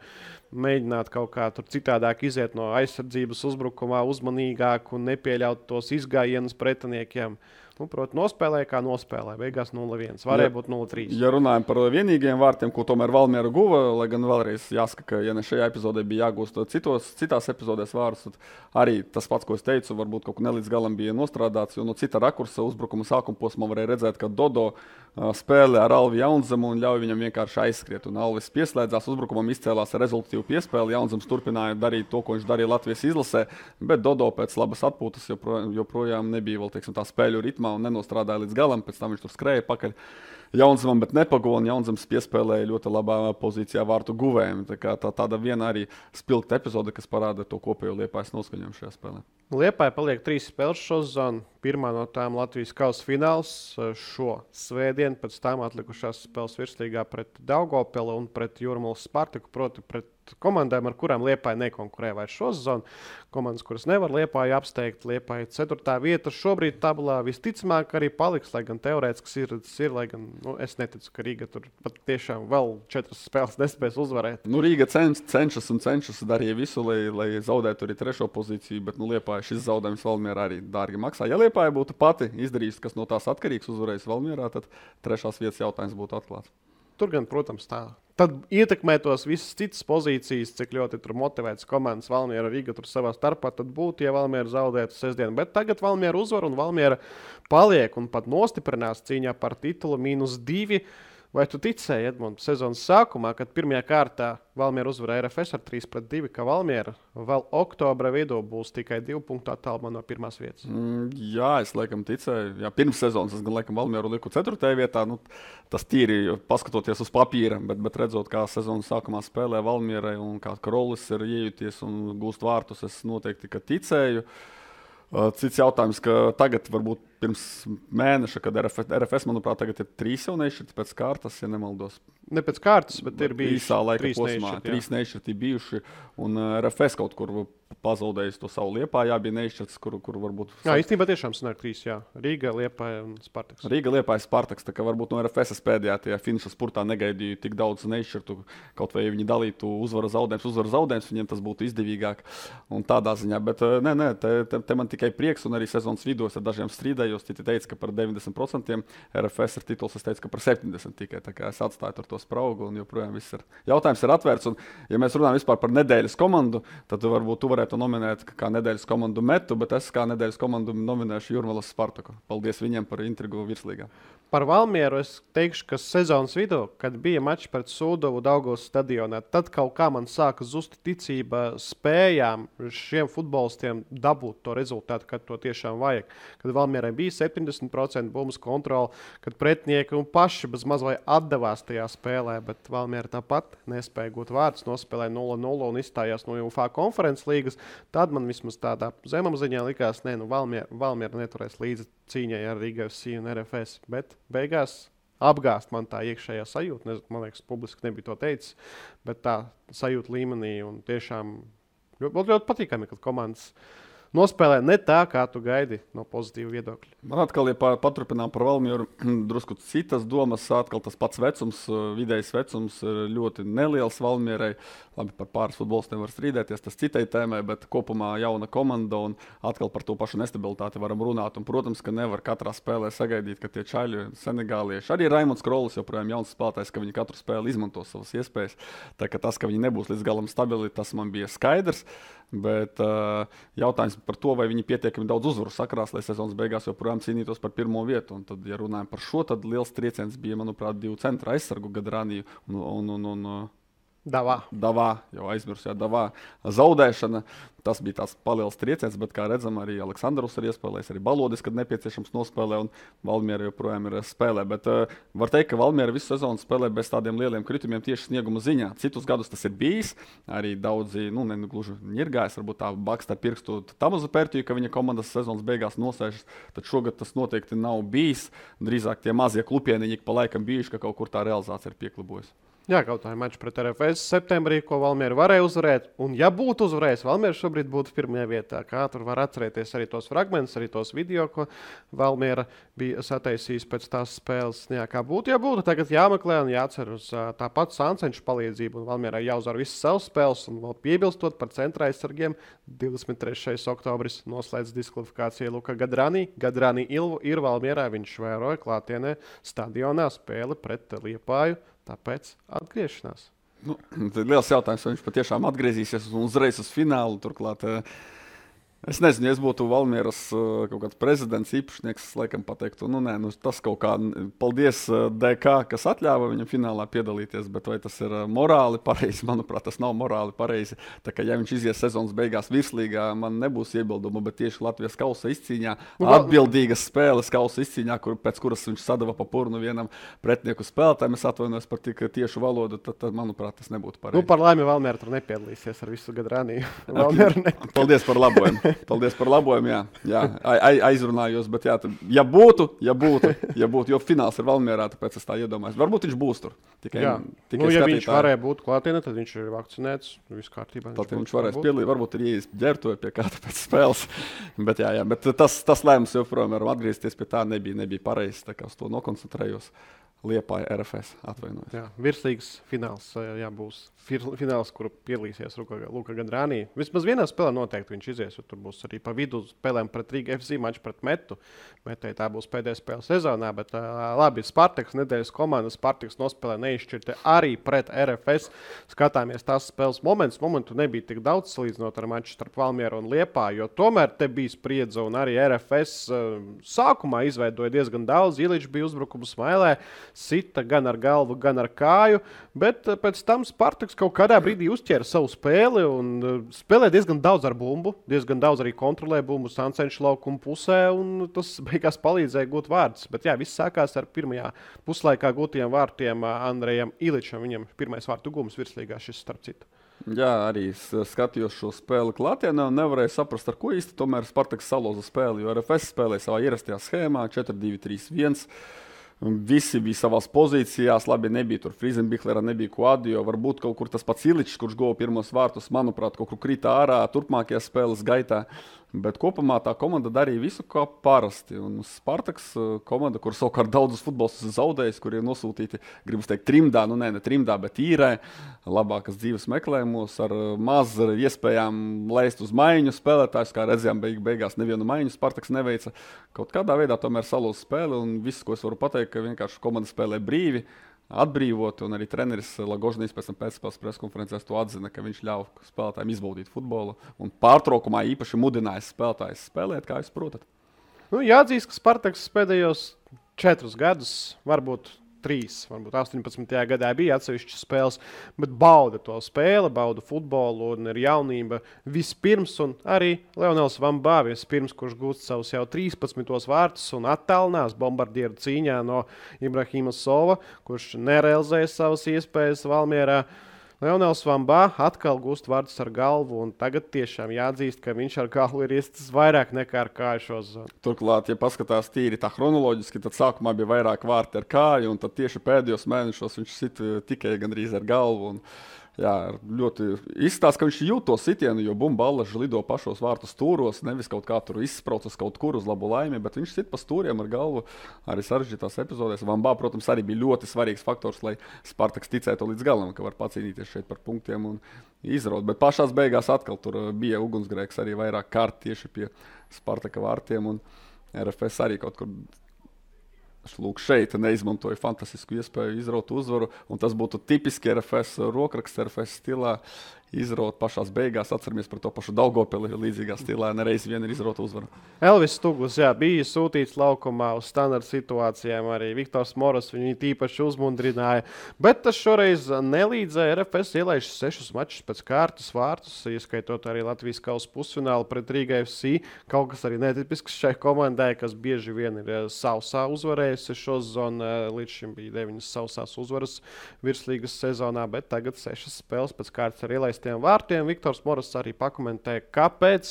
mēģināt kaut kā tur citādāk iziet no aizsardzības uzbrukumā, uzmanīgāk un nepieļaut tos izgājienus pretiniekiem. Proti, nospēlēja kā nospēlēja. Beigās 0-1. Varēja būt 0-3. Ja runājam par vienīgiem vārtiem, ko tomēr Valmiera guva, lai gan vēlreiz jāsaka, ka ja ne šajā epizodē bija jāgūst citās epizodēs vārdus, tad arī tas pats, ko es teicu, varbūt kaut ko nelīdz galam bija nostrādāts, jo no cita rakursa uzbrukuma sākuma posmā varēja redzēt, ka Dodo spēlē ar Alvi Jaunzemu un ļauj viņam vienkārši aizskriet. Un Alvis pieslēdzās uzbrukumam, izcēlās ar rezultātīvu piespēli. Jaunzems turpināja darīt to, ko viņš darīja Latvijas izlasē, bet Dodo pēc labas atpūtas joprojām nebija vēl, teiksim, tā spēļu ritmā un nenostrādāja līdz galam, pēc tam viņš tur skrēja pakaļ Jaunzemam, bet nepago, un Jaunzems piespēlēja ļoti labā pozīcijā vārtu guvējiem. Tāda viena arī spilgta epizode, kas parāda to kopējo Liepājas noskaņojumu šajā spēlē. Liepāja paliek 3 spēles šo sezonu. Pirmā no tām Latvijas kausa fināls šo svētdienu, pēc tam atlikušās spēles virslīgā pret Daugavpilu un pret Jūrmalas Spartaku, proti pret komandām, ar kurām Liepāja nekonkurē vairs šo sezonu. Komandas, kuras nevar Liepāju apsteigt, Liepāja 4. vieta šobrīd tabulā visticamāk arī paliks, lai gan teorētiski ir, lai gan es neticu, ka Rīga tur pat tiešām vēl 4 spēles nespēs uzvarēt. Rīga cenšas darīja visu, lai zaudētu arī 3. pozīciju, bet Liepāja šis zaudējums Valmierā arī dārgi maksā. Ja Liepāja būtu pati izdarījusi, kas no tās atkarīgs, uzvarējis Valmierā, tad 3. vietas jautājums būtu atklāts. Tur gan, protams, tā. Tad ietekmētos visas citas pozīcijas, cik ļoti tur motivētas komandas Valmiera Rīga tur savā starpā, tad būtu, ja Valmiera zaudētu sestdienu. Bet tagad Valmiera uzvar un Valmiera paliek un pat nostiprinās cīņā par titulu -2. Vai tu ticēji, Edmunds, sezonas sākumā, kad pirmajā kārtā Valmiera uzvarēja RFS ar 3-2, ka Valmiera vēl oktobra vidū būs tikai 2 punktu attālumā no 1. vietas? Jā, es laikam ticēju. Jā, pirms sezonas es gan laikam Valmieru liku 4. vietā. Tas tīri paskatoties uz papīra, bet redzot, kā sezonas sākumā spēlē Valmierai un kā Krolis ir iejuties un gūst vārtus, es noteikti ticēju. Cits jautājums, ka tagad, varbūt pirms mēneša, kad RFS, manuprāt, tagad ir 3 jau nešķirti pēc kārtas, ja nemaldos. Ne pēc kārtas, bet ir bijuši īsā laika 3 posmā. 3 nešķirti bijuši, un RFS kaut kur pazaudējis to savu Liepājā, bija nešķirts, kur varbūt... Jā, īstenībā tiešām sanāk 3, jā. Rīga, Liepāja un Spartaks. Rīga, Liepāja, Spartaks, tā kā varbūt no RFS pēdējā tajā finiša spurtā negaidīju tik daudz nešķirtu, kaut vai viņi dalītu uzvaru zaudējums, viņiem tas būtu izdevīgāk un tādā ziņā, bet te man tikai prieks, un arī sezonas vidū es ar dažiem strīdējos, citi teica, ka par 90% RFS ir tituls, es teicu, ka par 70% tikai, tā kā es atstāju ar to spraugu, un joprojām viss ir. Jautājums ir atvērts, un ja mēs runājam vispār par nedēļas komandu, tad varbūt tu varētu nominēt kā nedēļas komandu Metu, bet es kā nedēļas komandu nominēšu Jūrmalas Spartaku. Paldies viņiem par intrigu virslīgā. Par Valmieru es teikšu, ka sezonas vidū, kad bija mačs pret Sūdovu Daugavas stadionā, tad kaut kā man sāka zust ticība spējām šiem futbolistiem dabūt to rezultātu, kad to tiešām vajag. Kad Valmierai bija 70% bumbas kontrole, kad pretinieki un paši bez maz vai atdevās tajā spēlē, bet Valmiera tāpat nespēja gūt vārdus, nospēlēja 0-0 un izstājās no UFA konferences līgas. Tad man vismaz tādā zemapziņā likās, Valmiera neturēs līdzi cīņai ar Rīga FC un RFS, bet beigās apgāst man tā iekšējā sajūta. Man liekas, publiski nebija to teicis, bet tā sajūta līmenī un tiešām ļoti patīkami, kad komandas nospēlē ne tā, kā tu gaidi no pozitīva viedokļa. Man atkal, ja paturpinām par Valmieru, drusku citas domas, atkal tas pats vecums, vidējais vecums ir ļoti neliels Valmierai. Labi, par pāris futbolistiem var strīdēties, tas citai tēmai, bet kopumā jauna komanda un atkal par to pašu nestabilitāti varam runāt. Un, protams, ka nevar katrā spēlē sagaidīt, ka tie čaļi, senegālieši, arī Raimonds Krolis joprojām jauns spēlētājs, ka viņi katru spēli izmanto savas iespējas. Tā ka tas, ka viņi nebūs līdz galam stabili, tas man bija skaidrs. Bet jautājums par to, vai viņi pietiekami daudz uzvaru sakrās, lai sezonas beigās joprojām cīnītos par 1. vietu. Un tad, ja runājam par šo, tad liels trieciens bija, manuprāt, 2 centra aizsargu Gadraniju un Davā, jau aizmirsu, Davā zaudēšana. Tas bija tāds paliels trieciens, bet, kā redzam, arī Aleksandrs ir iespēlējis, arī Balodis, kad nepieciešams nospēlē, un Valmiera joprojām ir spēlē. Bet var teikt, ka Valmiera visu sezonu spēlē bez tādiem lieliem kritumiem tieši snieguma ziņā. Citus gadus tas ir bijis, arī daudzi, gluži ņirgājis, varbūt tā baksta ar pirkstu Tamazu Pērtiju, ka viņa komandas sezonas beigās nosēžas, tad šogad tas noteikti nav bijis. Drīzāk tie mazie klupieniņi pa laikam bijuši, ka kaut kur tā realizācija ir pieklibojusi. Jā, kaut kā mačs pret RFS septembrī, ko Valmiera varēja uzvarēt. Un, ja būtu uzvarējis, Valmiera šobrīd būtu 1. vietā. Kā tur var atcerēties arī tos fragmentus, arī tos video, ko Valmiera bija sataisījis pēc tās spēles. Jā, kā būtu, ja būtu, tagad jāmeklē un jācer uz tāpat Sancenšu palīdzību. Un Valmierai jāuzvar visas savas spēles un vēl piebilstot par centra aizsargiem. 23. oktobris noslēdz diskvalifikāciju Luka Gadranī. Gadranī ir Valmierā, viņš vēroja klātienē stadionā spēli pret Liepāju. Tāpēc atgriešanās. Tas ir liels jautājums, vai viņš patiešām atgriezīsies uzreiz uz finālu. Turklāt, es nezinu, ja es būtu Valmieras kaut kāds prezidents, īpašnieks, es laikam pateiktu, tas kaut kā paldies DK, kas atļāva viņam finālā piedalīties, bet vai tas ir morāli pareizi? Manuprāt, tas nav morāli pareizi. Tā kā ja viņš izies sezonas beigās virslīgā, man nebūs iebildumu, bet tieši Latvijas kausa izcīņā, atbildīgas spēles kausa izcīņā, pēc kuras viņš sadava pa purnu vienam pretinieku spēlētājiem, es atvainojos par tik tiešu valodu, tad manuprāt, tas nebūtu pareizi. Par laimi Valmiera tur nepiedalīsies ar visu Gadraniju. Paldies par labojumu. Paldies par labojumu, jā. Aizrunājos, bet ja būtu, jo fināls ir Valmierā, tāpēc es tā iedomājos. Varbūt viņš būs tur. Tikai ja viņš varēja būt klātienē, tad viņš ir vakcinēts, viss kārtībā. Tad viņš varēs piedalīt, varbūt ir ieies ģērbtuve pie kāda pēc spēles. Bet tas lēmums joprojām varam atgriezties pie tā, nebija pareizs, tā kā uz to nokoncentrējos. Liepāja RFS atvainojas. Jā, virslīgas fināls, būs fināls, kuru piedalīsies Luka Gadrānī. Vismaz vienā spēlē noteikti viņš izies, jo tur būs arī pa vidu spēlēm pret Rīga FC maču pret Metu. Metēji tā būs pēdējā spēle sezonā, bet labi, Spartaks nedēļas komanda, Spartaks nospēlē neizšķirti arī pret RFS. Skatāmies tās spēles momentu nebija tik daudz salīdzinot ar maču starp Valmieru un Liepāju, jo tomēr te bija spriedze un arī RFS sākumā izveidoja diezgan daudz. Iličs bija uzbrukumu smailē. Sita gan ar galvu, gan ar kāju, bet pēc tam Spartaks kaut kādā brīdī uzķēra savu spēli un spēlē diezgan daudz ar bumbu, diezgan daudz arī kontrolē bumbu Sancenša laukuma pusē, un tas beigās palīdzēja gūt vārdus. Bet viss sākās ar pirmajā puslaikā gūtajiem vārtiem Andrejam Iličam. Viņam pirmais vārtu gūms virslīgā šis starp citu. Jā, arī skatījos šo spēli klātienē un nevarēju saprast, ar ko īsti tomēr Spartaks salauza spēli, jo RFS spēlēja savā ierastajā schēmā 4-2-3-1. Visi bija savās pozīcijās, labi, nebija tur Friesenbichlera, nebija Kuadio, varbūt kaut kur tas pats Iličs, kurš guva pirmos vārtus, manuprāt, kaut kur krita ārā turpmākajā spēles gaitā. Bet kopumā tā komanda darīja visu kā parasti. Un Spartaks komanda, kur savukārt daudzus futbolistus zaudējis, kur ir nosūtīti, gribas teikt, trimdā, ne trimdā, bet īrē, labākas dzīves meklējumos, ar maz iespējām leist uz maiņu spēlētājus, kā redzējām, beigās nevienu maiņu Spartaks neveica. Kaut kādā veidā tomēr salūza spēli, un viss, ko es varu pateikt, ka vienkārši komanda spēlē brīvi, atbrīvot, un arī treneris Lagožnīs pēc spēles preskonferencēs to atzina, ka viņš ļauj spēlētājiem izbaudīt futbolu un pārtraukumā īpaši mudināja spēlētājus spēlēt, kā jūs protat. Jāatzīst, ka Spartaks pēdējos 4 gadus, varbūt 18. gadā bija atsevišķas spēles, bet bauda to spēli, bauda futbolu un ir jaunība vispirms, un arī Leonels Vambā vispirms, kurš gūst savus jau 13. vārtus un attālinās bombardieru cīņā no Ibrahima Sova, kurš nerealizēja savas iespējas Valmierā. Leonels Vambā atkal gūst vārdus ar galvu, un tagad tiešām jāatzīst, ka viņš ar galvu ir iestis vairāk nekā ar kāju šo zonu. Turklāt, ja paskatās tīri tā chronoloģiski, tad sākumā bija vairāk vārti ar kāju, un tad tieši pēdējos mēnešos viņš sit tikai gandrīz ar galvu. Ļoti izstāsta, ka viņš jūt to sitienu, jo bumballaži lido pašos vārtu stūros, nevis kaut kā tur izspraucas kaut kur uz labu laimi, bet viņš sit pa stūriem ar galvu arī sarežģītās epizodēs. Vambā, protams, arī bija ļoti svarīgs faktors, lai Spartaks ticētu līdz galam, ka var pacīnīties šeit par punktiem un izraut. Bet pašās beigās atkal tur bija ugunsgrēks arī vairāk kārt tieši pie Spartaka vārtiem, un RFS arī kaut kur šeit neizmantoja fantastisku iespēju izraut uzvaru, un tas būtu tipiski RFS rokraksts, RFS stilā. Izraut pašās beigās, atceramies par to pašu Daugavpili līdzīgā stilā, nereiz vien ir izrauta uzvara. Elvis Stuglis, bija sūtīts laukumā uz standarta situācijām, arī Viktors Moras viņu tīpaši uzmundrināja, bet tas šoreiz nelīdzēja. RFS ielaiž 6 mačus pēc kārtas vārtus, ieskaitot arī Latvijas kausa pusfinālu pret Rīga FC, kaut kas arī netipisks šai komandai, kas bieži vien ir sausā uzvarējusi šo zonu, līdz šim bija 9 sausās uzvaras virslīgas sezonā, bet tagad 6 spēles pēc kārtas ar ielaist vārtiem. Viktors Moras arī pakomentēja, kāpēc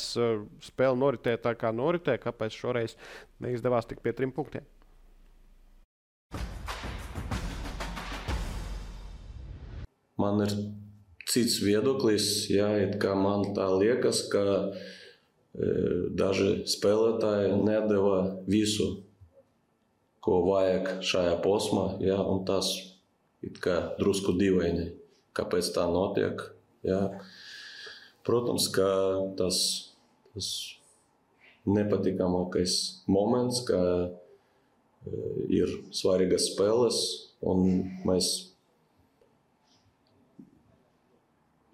spēle noritēja tā, kā noritēja, kāpēc šoreiz neizdevās tik pie 3 punktiem. Man ir cits viedoklis, kā man tā liekas, ka daži spēlētāji nedeva visu, ko vajag šajā posmā, un tas it kā drusku dīvaini, kāpēc tā notiek. Protams, ka tas nepatīkamākais moments, ka ir svarīgas spēles un mēs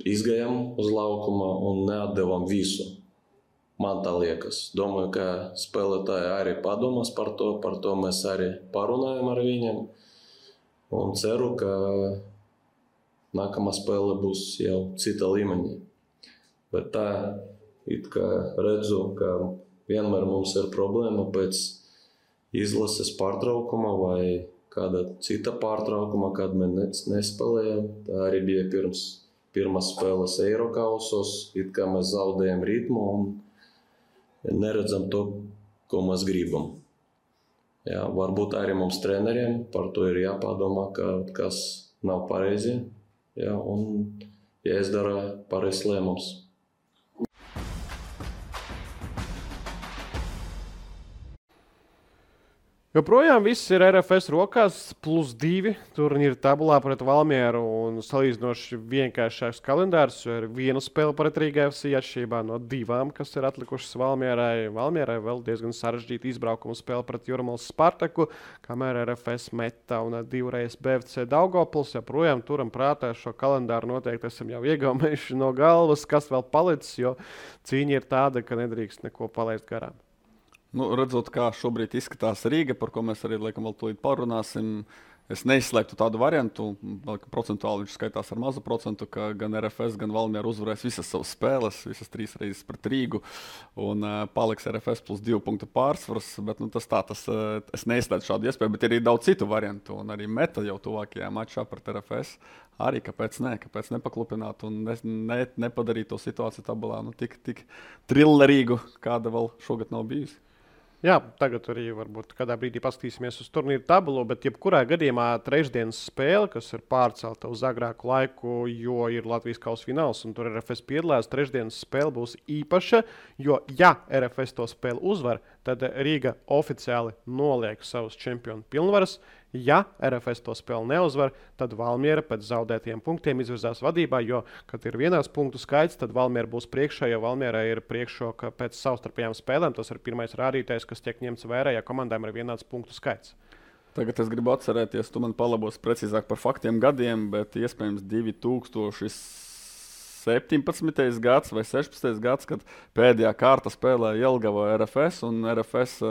izgājām uz laukuma un neatdevām visu. Man tā liekas. Domāju, ka spēlētāji arī padomās par to mēs arī parunājam ar viņiem un ceru, ka nākamā spēle būs jau cita līmeņa. Bet tā, it kā redzu, ka vienmēr mums ir problēma pēc izlases pārtraukuma vai kāda cita pārtraukuma, kad mēs nespēlējam. Tā arī bija pirms pirmās spēles Eirokausos, it kā mēs zaudējam ritmu un neredzam to, ko mēs gribam. Jā, varbūt arī mums treneriem par to ir jāpadomā, ka kas nav pareizi, jā, un jāizdara pareizs lēmums. Joprojām viss ir RFS rokās, +2 turnīra tabulā pret Valmieru un salīdzinoši vienkāršāks kalendārs, jo ir viena spēle pret Rīga FC atšķirībā no 2, kas ir atlikušas Valmierai. Valmierai vēl diezgan sarežģīta izbraukuma spēle pret Jūrmālas Spartaku, kamēr RFS Meta un 2 BFC Daugavpils. Joprojām turam prātā šo kalendāru noteikti esam jau iegaumējuši no galvas, kas vēl palicis, jo cīņa ir tāda, ka nedrīkst neko palaist garām. Redzot, kā šobrīd izskatās Rīga, par ko mēs arī laikam vēl tūlīt parunāsim, es neizslēgtu tādu variantu, procentuāli viņš skaitās ar mazu procentu, ka gan RFS, gan Valmiera uzvarēs visas savas spēles, visas 3 reizes pret Rīgu, un paliks RFS +2 punktu pārsvars, bet es neizslēgtu šādu iespēju, bet ir arī daudz citu variantu, un arī Meta jau tuvākajā mačā pret RFS. Arī kāpēc nepaklupināt un nepadarīt to situāciju tabulā tik trillerīgu, kāda vēl šogad nav bijusi. Jā, tagad arī varbūt kādā brīdī paskatīsimies uz turnīru tabulu, bet jebkurā gadījumā trešdienas spēle, kas ir pārcelta uz agrāku laiku, jo ir Latvijas kausa fināls un tur RFS piedalās, trešdienas spēle būs īpaša, jo ja RFS to spēli uzvar, tad Rīga oficiāli noliek savus čempionu pilnvaras. Ja RFS to spēli neuzvar, tad Valmiera pēc zaudētiem punktiem izvirzās vadībā, jo, kad ir vienās punktu skaits, tad Valmiera būs priekšā, jo Valmiera ir priekšroka pēc savstarpējām spēlēm. Tas ir pirmais rādītājs, kas tiek ņemts vērā, ja komandām ir vienāds punktu skaits. Tagad es gribu atcerēties, tu man palabos precīzāk par faktiem gadiem, bet iespējams 2017. gads vai 16. gads, kad pēdējā kārta spēlēja Jelgava RFS, un RFS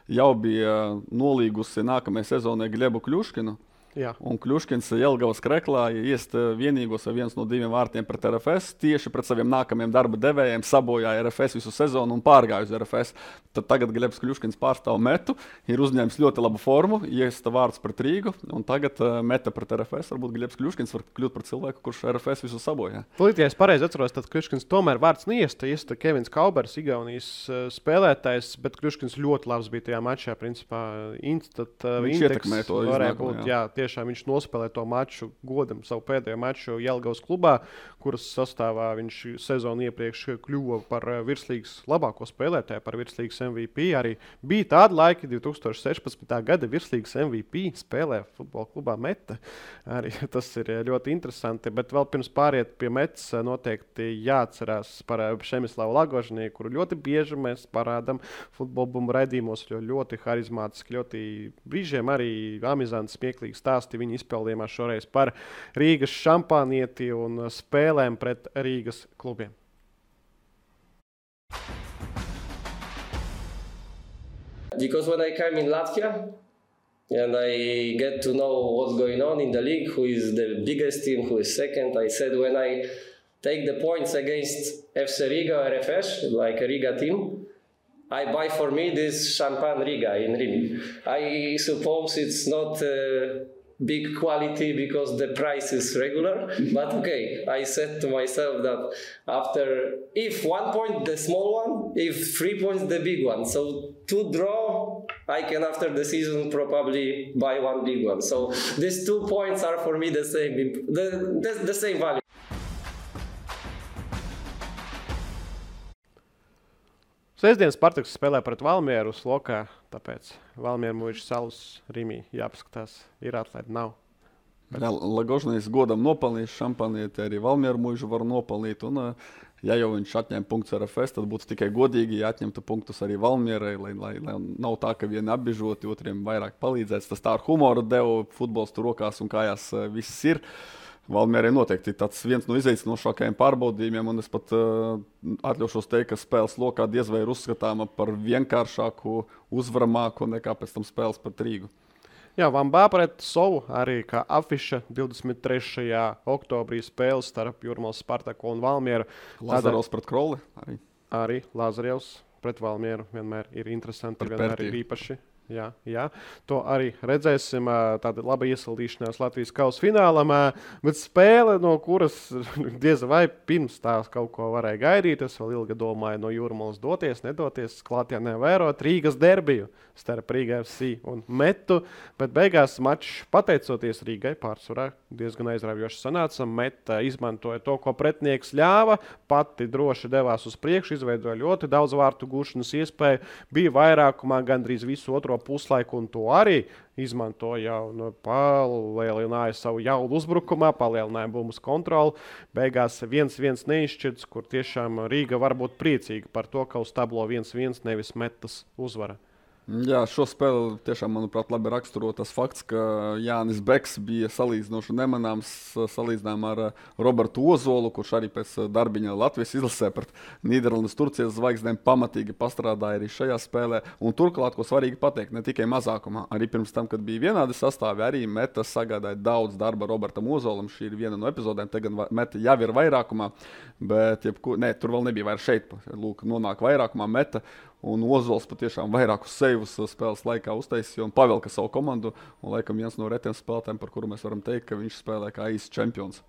jau bija nolīgusi nākamajai sezonai Glebu Kļuškinu. Jā. Un Kļuškins Jelgavas kreklā iest vienīgos vai viens no 2 vārtiem pret RFS, tieši pret saviem nākamajiem darba devējiem sabojāja RFS visu sezonu un pārgāja uz RFS. Tad tagad Glebs Kļuškins pārstāv Metu, ir uzņēmis ļoti labu formu, iesta vārds pret Rīgu, un tagad Meta pret RFS. Varbūt Glebs Kļuškins var kļūt par cilvēku, kurš RFS visu sabojā. Tūlīt, ja es pareizi atceros, tad Kļuškins tomēr vārds neiesta Kevins Kaubers, Igaunijas spēlētājs, bet Kļuškins ļoti labs bija tajā mačā, principā viņš ietekmē to iznākumu. Tiešām viņš nospēlēja to maču godam, savu pēdējo maču Jelgavas klubā, kuras sastāvā viņš sezonu iepriekš kļuva par virslīgas labāko spēlētāju, par virslīgas MVP. Arī bija tādi laiki, 2016. gada virslīgas MVP spēlē futbola klubā Meta. Arī tas ir ļoti interesanti, bet vēl pirms pāriet pie Metas noteikti jāatcerās par Šemislavu Lagožņī, kuru ļoti bieži mēs parādām futbola bumbu raidījumos, jo ļoti harizmātiski, ļoti brīžiem arī amizanti, smieklīgi stāsti viņa izpildījumā šoreiz par Rīgas šampānieti un spēlēm pret Rīgas klubiem. Because when I came in Latvia and I get to know what's going on in the league, who is the biggest team, who is second, I said when I take the points against FC Riga or RFS, like a Riga team, I buy for me this Champagne Riga in Rim. I suppose it's not big quality because the price is regular, but okay, I said to myself that if 1 point the small one, if 3 points the big one, so 2 draw, I can after the season probably buy 1 big one. So these 2 points are for me the same value. Sestdienas Spartaks spēlē pret Valmieru uz lokā, tāpēc Valmiera Mūža salas Rimī jāpaskatās, ir atlaid, nav. Lagožņīs godam nopelnījis šampanieti, arī Valmiera Mūžu var nopelnīt, un ja jau viņš atņem punktus RFS, tad būtu tikai godīgi, ja atņemtu punktus arī Valmierai, lai nav tā, ka vieni apbižoti, otriem vairāk palīdzēts. Tas tā ar humoru deva futbols tur rokās un kājās viss ir. Valmierai noteikti tāds viens no izaicinošākajiem pārbaudījumiem, un es pat atļaušos teikt, ka spēles lokā diez vai ir uzskatāma par vienkāršāku, uzvaramāku nekā pēc tam spēles pret Rīgu. Jā, Vambā pret Sovu arī kā afiša 23. oktobrī spēles starp Jūrmālas Spartaku un Valmieru. Lazarevs pret Kroli arī. Arī Lazarevs pret Valmieru vienmēr ir interesanti, vienmēr ir īpaši. Jā. To arī redzēsim. Tāda laba iesildīšanās Latvijas kausa finālam, bet spēle, no kuras diez vai pirms tās kaut ko varēja gaidīt. Es vēl ilgi domāju, no Jūrmalas doties, nedoties, klātienē vērot Rīgas derbiju starp Rīga FC un Metu, bet beigās mačs, pateicoties Rīgai, pārsvarā diezgan aizraujoši sanāca. Meta izmantoja to, ko pretinieks ļāva, pati droši devās uz priekšu, izveidoja ļoti daudz vārtu gūšanas iespēju, bija vairākumā gandrīz visu otro puslaiku, un to arī izmantoja un palielināja savu jaudu uzbrukumā, palielināja bumbas kontroli. Beigās 1-1 neizšķirts, kur tiešām Rīga var būt priecīga par to, ka uz tablo 1-1 nevis Metas uzvara. Jā, šo spēli tiešām, manuprāt, labi raksturo tas fakts, ka Jānis Beks bija salīdzinoši nemanāms salīdzinājumā ar Robertu Ozolu, kurš arī pēc darbiņa Latvijas izlasē pret Nīderlandes Turcijas zvaigznēm pamatīgi pastrādāja arī šajā spēlē. Un turklāt, ko svarīgi pateikt, ne tikai mazākumā, arī pirms tam, kad bija vienādi sastāvi, arī Meta sagādāja daudz darba Robertam Ozolam. Šī ir viena no epizodēm, tagad Meta jau ir vairākumā, bet tur vēl nebija vairs šeit. Lūk, nonāk vairākumā Meta. Un Ozols patiešām vairākus seivus spēles laikā uztaisīja un pavelka savu komandu. Un, laikam, viens no retiem spēlētājiem, par kuru mēs varam teikt, ka viņš spēlē kā īsts čempions.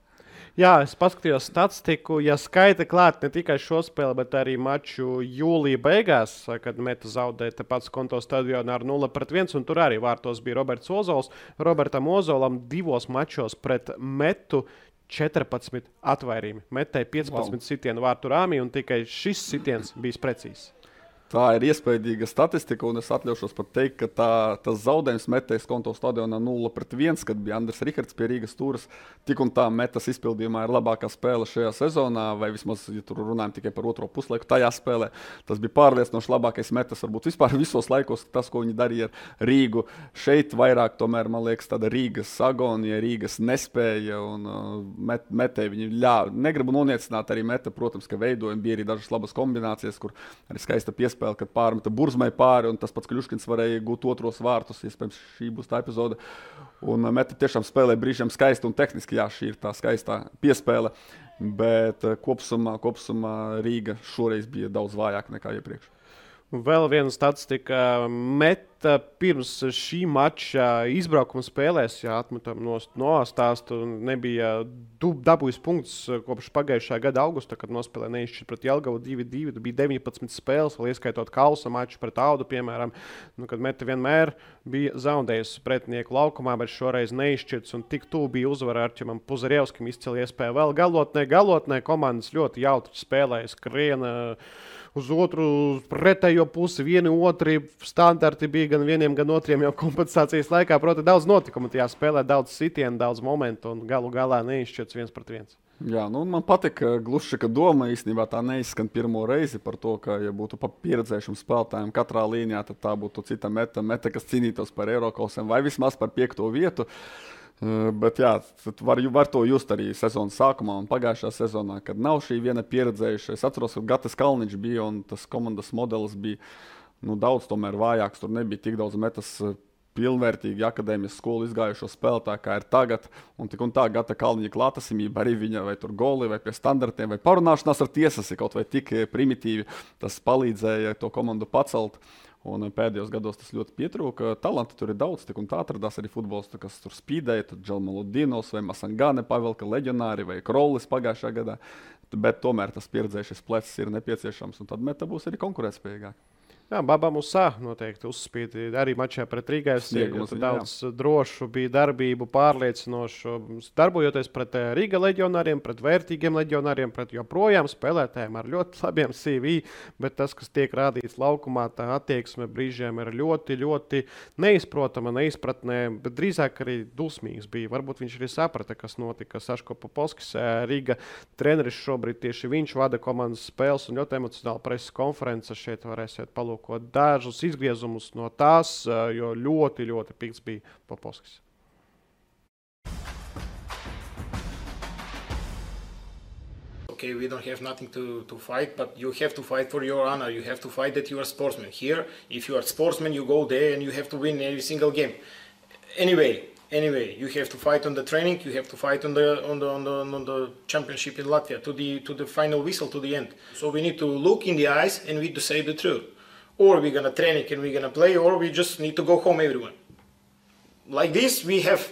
Jā, es paskatījos statistiku. Ja skaita klāt ne tikai šo spēli, bet arī maču jūlija beigās, kad Meta zaudēja tepat Skonto stadionā ar 0-1, un tur arī vārtos bija Roberts Ozols. Robertam Ozolam 2 mačos pret Metu 14 atvairījumi. Metai 15 sitienu vārtu rāmī, un tikai šis sitiens bijis precīzs. Tā ir iespaidīga statistika, un es atļaušos pat teikt, ka tas zaudējums Metas Skonto stadionā 0-1, kad bija Andris Rihards pie Rīgas stūres, tik un tā Metas izpildījumā ir labākā spēle šajā sezonā, vai vismaz, ja tur runājam tikai par otro puslaiku, tajā spēlē. Tas bija pārliecinoši labākais Metas, varbūt vispār visos laikos, tas, ko viņi darīja ar Rīgu. Šeit vairāk, tomēr, man liekas, tāda Rīgas agonija, Rīgas nespēja, un Metai viņi ļāva. Negribu noniecināt arī Meta, protams, ka veidojumi bija arī dažas labas kombinācijas, kur arī skaista piespēle, kad pārmeta Burzmai pāri, un tas pats Kļuškins varēja gūt otros vārtus. Iespējams, šī būs tā epizode. Un Meta tiešām spēlē brīžiem skaisti un tehniski, jā, šī ir tā skaistā piespēle, bet kopsumā Rīga šoreiz bija daudz vājāka nekā iepriekš. Vēl viena statistika. Meta pirms šī mača izbraukuma spēlēs, ja atmetam no stāstu, nebija dabūjis punkts kopš pagājušā gada augusta, kad nospēlēja neizšķirt pret Jelgavu 2-2. Bija 19 spēles, vēl ieskaitot kausa maču pret Audu, piemēram, kad Meta vienmēr bija zaudējusi pretinieku laukumā, bet šoreiz neizšķirts, un tik tuvu bija uzvara Arķimam Puzarevskim, izcili iespēja vēl galotnē. Komandas ļoti jautri spēlēja, skriena uz otru pretējo pusi, vieni otri standarti bija gan vieniem, gan otriem jau kompensācijas laikā. Proti, daudz notikumu tajā spēlē, daudz sitienu, daudz momentu, un galu galā neizšķirts 1-1. Jā, man patīk Gluščika doma. Īstenībā tā neizskan pirmo reizi par to, ka, ja būtu pa pieredzējušiem spēlētājiem katrā līnijā, tad tā būtu cita Meta, kas cīnītos par Eirokausiem vai vismaz par 5. vietu. Bet jā, var to just arī sezonas sākumā un pagājušā sezonā, kad nav šī viena pieredzējuša. Es atceros, ka Gatis Kalniņš bija un tas komandas modelis bija daudz tomēr vājāks. Tur nebija tik daudz Metas pilnvērtīgi akadēmijas skolu izgājušo spēlētāju, kā ir tagad. Un tik un tā Gata Kalniņa klātesamība arī viņa vai tur goli vai pie standartiem vai parunāšanās ar tiesas ir kaut vai tik primitīvi. Tas palīdzēja to komandu pacelt. Un pēdējos gados tas ļoti pietrūka. Talanti tur ir daudz, tik un tā atradās arī futbolisti, kas tur spīdēja. Tur Dželmaludinovs vai Masangane pavelka leģionāri vai Krollis pagājušā gadā. Bet tomēr tas pieredzējušais plecs ir nepieciešams, un tad Meta būs arī konkurētspējīgāk. Jā, Baba Musā noteikti uzspīd arī mačā pret Rīgas. Daudz drošu bija darbību, pārliecinošu, darbojoties pret Rīga leģionāriem, pret vērtīgiem leģionāriem, pret joprojām spēlētājiem ar ļoti labiem CV, bet tas, kas tiek rādīts laukumā, tā attieksme brīžiem ir ļoti, ļoti neizprotama, neizpratnē, bet drīzāk arī dusmīgs bija. Varbūt viņš arī saprata, kas notika. Saško Popovskis, Rīga treneris šobrīd tieši viņš vada komandas spēles un ļoti emocionāla preses konference. Šeit varēsiet palūkot dažus izgriezumus no tās, jo ļoti, ļoti pikts bija Popovskis. Okay, we don't have nothing to fight, but you have to fight for your honor. You have to fight that you are a sportsman. Here, if you are a sportsman, you go there and you have to win every single game. Anyway, you have to fight on the training. You have to fight on the championship in Latvia to the final whistle, to the end. So we need to look in the eyes and we need to say the truth. or we're gonna train and we're gonna play, or we just need to go home, everyone. Like this, we have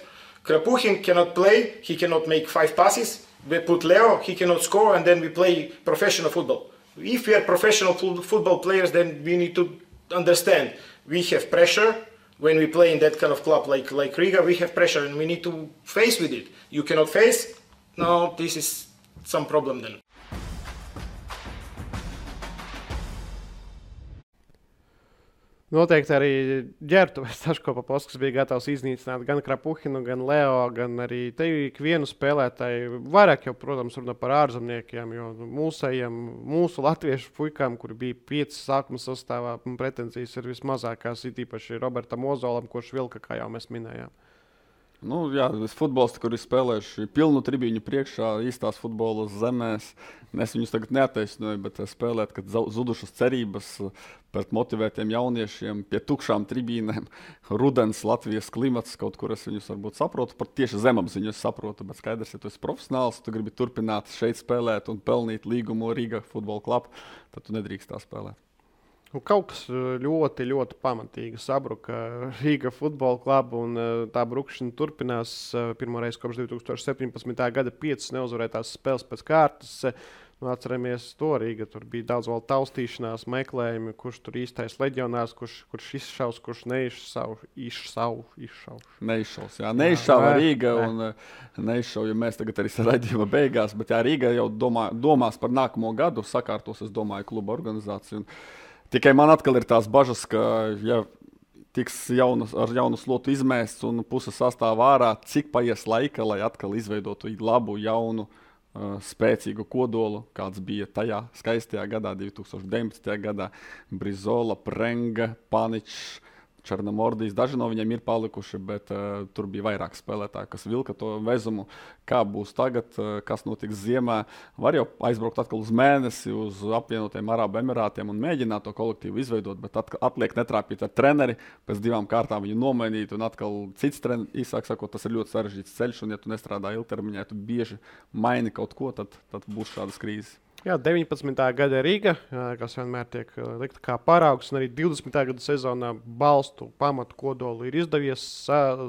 Krapuhin cannot play, he cannot make 5 passes. We put Leo, he cannot score, and then we play professional football. If we are professional football players, then we need to understand we have pressure. When we play in that kind of club like Riga, we have pressure and we need to face with it. You cannot face, no, this is some problem then. Noteikti arī ģērbtuves Taško-Papovskis bija gatavs iznīcināt gan Krapuhinu, gan Leo, gan arī te ikvienu spēlētāju. Vairāk jau, protams, runā par ārzemniekiem, jo mūsu latviešu puikām, kuri bija 5 sākuma sastāvā, pretenzijas ir vismazākās, it īpaši Robertam Ozolam, kurš vilka, kā jau mēs minējām. Nu, jā, futbolisti, kuri spēlējuši pilnu tribīņu priekšā, īstās futbola zemēs. Es viņus tagad neattaisnoju, bet spēlēt, kad zudušas cerības pret motivētiem jauniešiem pie tukšām tribīnēm. Rudens, Latvijas klimats, kaut kur es viņus varbūt saprotu, pat tieši zemapziņu es saprotu, bet skaidrs, ja tu esi profesionāls, tu gribi turpināt šeit spēlēt un pelnīt līgumu Riga futbola klubu, tad tu nedrīkst tā spēlēt. Kaut kas ļoti, ļoti pamatīgi sabruka Riga futbola klubu, un tā brukšana turpinās pirmoreiz kopš 2017. gada 5 neuzvarētās spēles pēc kārtas. Atceramies to Riga, tur bija daudz vēl taustīšanās, meklējumi, kurš tur īstais leģionārs, kurš izšaus, kurš neizšauja Riga un neizšauja mēs tagad arī raidījuma beigās, bet jā, Riga jau domās par nākamo gadu, sakārtos, es domāju, kluba organizāciju. Tikai man atkal ir tās bažas, ka ja tiks ar jaunu slotu izmēsts un puse sastāvā ārā, cik paies laika, lai atkal izveidotu labu, jaunu, spēcīgu kodolu, kāds bija tajā skaistajā gadā, 2019. gadā. Brizola, Prenga, Paničs, Černomordijs, daži no viņiem ir palikuši, bet tur bija vairāk spēlētāji, kas vilka to vezumu. Kā būs tagad, kas notiks ziemā? Var jau aizbraukt atkal uz mēnesi, uz apvienotajiem Arābu Emirātiem un mēģināt to kolektīvu izveidot, bet atliek netrāpīt ar treneri, pēc 2 kārtām viņu nomainīt un atkal cits treneris, īsāk sakot, tas ir ļoti sarežģīts ceļš, un ja tu nestrādā ilgtermiņā, ja tu bieži maini kaut ko, tad būs šādas krīzes. Jā, 19. gada Riga, kas vienmēr tiek likta kā paraugs, un arī 20. gada sezonā balstu pamatu kodolu ir izdevies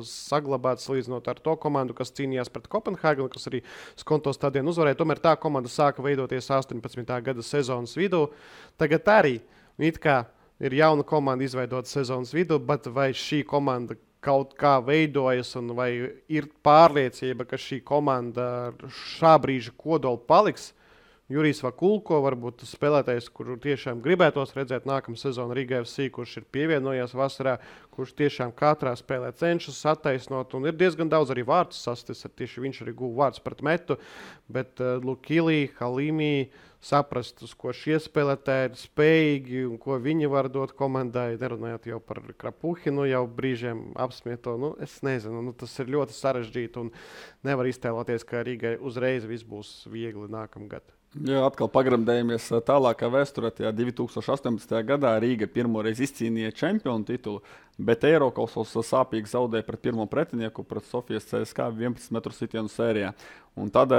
saglabāt, salīdzinot ar to komandu, kas cīnījās pret Kopenhāgenu, kas arī Skonto stadionu uzvarēja. Tomēr tā komanda sāka veidoties 18. gada sezonas vidū. Tagad arī it kā ir jauna komanda izveidota sezonas vidū, bet vai šī komanda kaut kā veidojas un vai ir pārliecība, ka šī komanda šā brīža kodolu paliks? Jurijs Vakulko, varbūt spēlētājs, kuru tiešām gribētos redzēt nākamā sezona Riga FC, kurš ir pievienojies vasarā, kurš tiešām katrā spēlē cenšas attaisnot, un ir diezgan daudz arī vārtus sastis, tieši viņš arī guva vārds pret metu, bet Lukili, Halimi saprast, uz ko šie spēlētāji ir spējīgi un ko viņi var dot komandai, nerunājot jau par Krapuhinu, jau brīžiem apsmieto, es nezinu, tas ir ļoti sarežģīti un nevar iztēloties, ka Rigai uzreiz viss būs viegli nākamgad. Jā, atkal pagremdējamies tālākā vēsturē. 2018. gadā Rīga pirmoreiz izcīnīja čempionu titulu, bet Eirokausos sāpīgi zaudēja pret pirmo pretinieku, pret Sofijas CSKA 11 metru sitienu sērijā. Un tad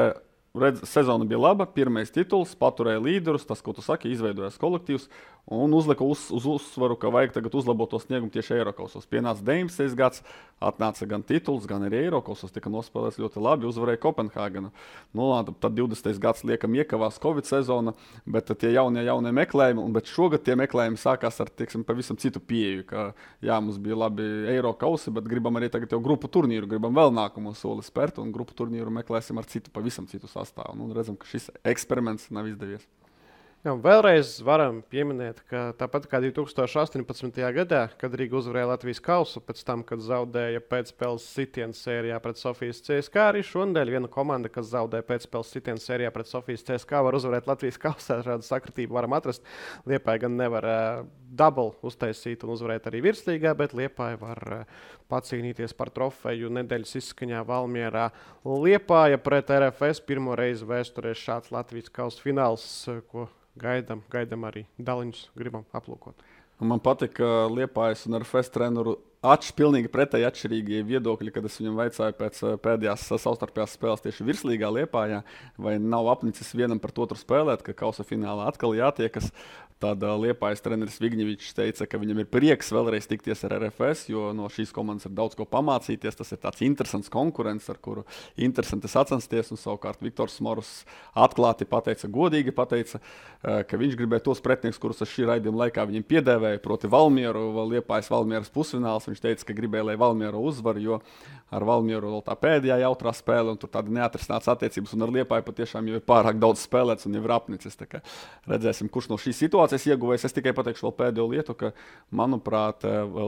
sezona bija laba, pirmais tituls, paturēja līderus, tas, ko tu saki, izveidojās kolektīvs un uzlika uz uzsvaru, ka vajag tagad uzlabot to sniegumu tieši Eirokausos. Pienāca 19. gads, atnāca gan tituls, gan arī Eirokausos, tika nospēlēts ļoti labi, uzvarēja Kopenhāgenu. Tad 20. gads liekam iekavās Covid sezona, bet tie jaunie meklējumi, bet šogad tie meklējumi sākās ar, pavisam citu pieeju, ka jā, mums bija labi Eirokausi, bet gribam arī tagad jau grupu turnīru, gribam vēl nākamo soli spērt un grupu turnīru meklēsim ar pavisam citu sastāvu. Redzam, ka šis eksperiments nav izdevies. Jā, vēlreiz varam pieminēt, ka tāpat kā 2018. gadā, kad Riga uzvarēja Latvijas kausu, pēc tam, kad zaudēja pēcspēles sitienu sērijā pret Sofijas CSKA, arī šonadēļ viena komanda, kas zaudēja pēcspēles sitienu sērijā pret Sofijas CSKA, var uzvarēt Latvijas kausā. Šādu sakritību varam atrast. Liepāja gan nevar double uztaisīt un uzvarēt arī virslīgā, bet Liepāja var pacīnīties par trofeju nedēļas izskaņā Valmierā. Liepāja pret RFS pirmo reizi vēsturē šāds Latvijas kausa fināls, ko gaidām arī daliņus gribam aplūkot. Man patīk, ka Liepājas un RFS treneru pilnīgi pretēji atšķirīgi viedokļi, kad es viņam vaicāju pēc pēdējās savstarpējās spēles tieši virslīgā Liepājā, vai nav apnicis vienam pret otru spēlēt, ka kausa finālā atkal jātiekas. Tad Liepājas treneris Vigņevičs teica, ka viņam ir prieks vēlreiz tikties ar RFS, jo no šīs komandas ir daudz ko pamācīties. Tas ir tāds interesants konkurents, ar kuru interesanti sacensties. Un savukārt Viktors Morus atklāti pateica, godīgi pateica, ka viņš gribēja tos pretinieks, kurus es šī raidījuma laikā viņam piedēvēju, proti Valmieru, Liepājas Valmieras pusfināls. Viņš teica, ka gribēja, lai Valmieru uzvar, jo ar Valmieru vēl tā pēdējā jautrā spēle, un tur tāda neatrisināts attiecības, un ar Liepāju patiešām jau ir pārāk daudz spēlēts un jau ir apnicis. Tā kā redzēsim, kurš no šīs situācijas ieguvējis. Es tikai pateikšu vēl pēdējo lietu, ka, manuprāt,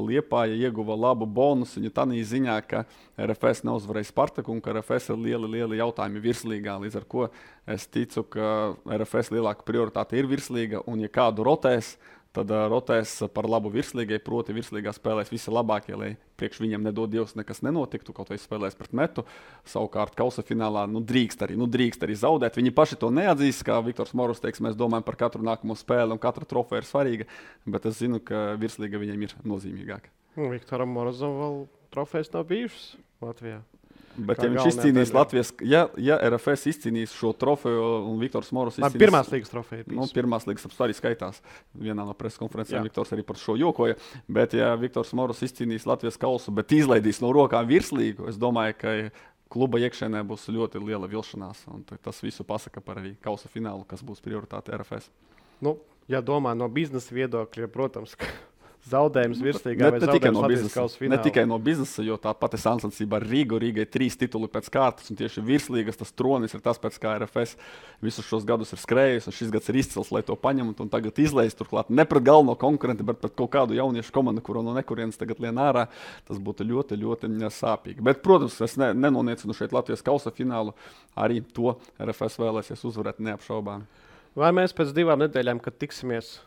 Liepāja ieguva labu bonusiņu tādā ziņā, ka RFS neuzvarēja Spartaku un ka RFS ir lieli jautājumi virslīgā, līdz ar ko es ticu, ka RFS lielāka prioritāte ir virslīga, un ja kādu rotēs, tad rotēs par labu virslīgai, proti virslīgā spēlēs visi labākie, lai priekš viņam nedod Dievs nekas nenotiktu, kaut vai spēlēs pret Metu. Savukārt kausa finālā drīkst arī zaudēt. Viņi paši to neatzīst, kā Viktors Morus teiks, mēs domājam par katru nākamo spēli un katra trofeja ir svarīga, bet es zinu, ka virslīga viņam ir nozīmīgāka. Viktoram Morozam vēl trofejas nav bijušas Latvijā. Bet ja viņš izcīnīs Latvijas, ja RFS izcīnīs šo trofeju un Viktors Morus izcīnīs... Pirmās līgas trofeja. Pirmās līgas arī skaitās. Vienā no preses konferencēm Viktors arī par šo jokoja. Bet ja Viktors Morus izcīnīs Latvijas kausu, bet izlaidīs no rokām virslīgu, es domāju, ka kluba iekšēnē būs ļoti liela vilšanās. Un tas visu pasaka par arī kausa finālu, kas būs prioritāte RFS. Ja domā no biznesa viedokļa, protams, ka zaudējums virslīgā vai zaudējums Latvijas kausa finālā. Ne tikai no biznesa, jo tā pati sāncensība ar Rīgu. Rīgai 3 tituli pēc kārtas, un tieši virslīgas tas tronis ir tas, pēc kā RFS visus šos gadus ir skrējis, un šis gads ir izcils, lai to paņemtu, un tagad izleist turklāt ne pret galveno konkurentu, bet pret kaut kādu jauniešu komandu, kuru no nekurienes tagad lien ārā. Tas būtu ļoti sāpīgi. Bet, protams, es nenoniecinu šeit Latvijas kausa finālu, arī to RFS vēlēsies uzvarēt neapšaubāmi. Vai mēs pēc 2 nedēļām, kad tiksimies,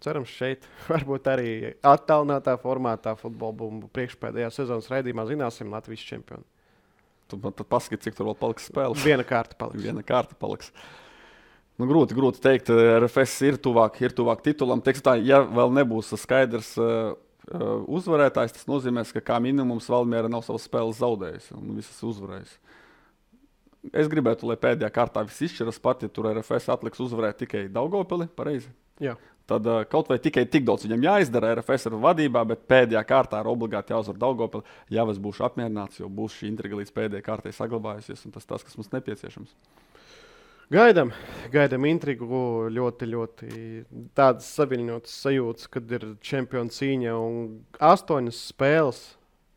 cerams šeit, varbūt arī attālinātā formātā futbola bumbu priekšpēdējā sezonas raidījumā zināsim Latvijas čempionu. Tu man tad paskati, cik tur vēl paliks spēles. Viena kārta paliks. Grūti teikt, RFS ir tuvāk titulam. Teiksim tā, ja vēl nebūs skaidrs uzvarētājs, tas nozīmēs, ka kā minimums Valmiera nav savas spēles zaudējusi un visas uzvarējusi. Es gribētu, lai pēdējā kārtā viss izšķiras pat, ja tur RFS atliks uzvarēt tikai Daugavpili, pareizi? Jā. Tad kaut vai tikai tik daudz viņam jāizdara, RFS ir vadībā, bet pēdējā kārtā ir obligāti jāuzvar Daugavpili. Jā, es būšu apmierināts, jo būs šī intriga līdz pēdējai kārtai saglabājusies, un tas, kas mums nepieciešams. Gaidam intrigu, ļoti tādas saviņotas sajūtas, kad ir čempionu cīņa un 8 spēles.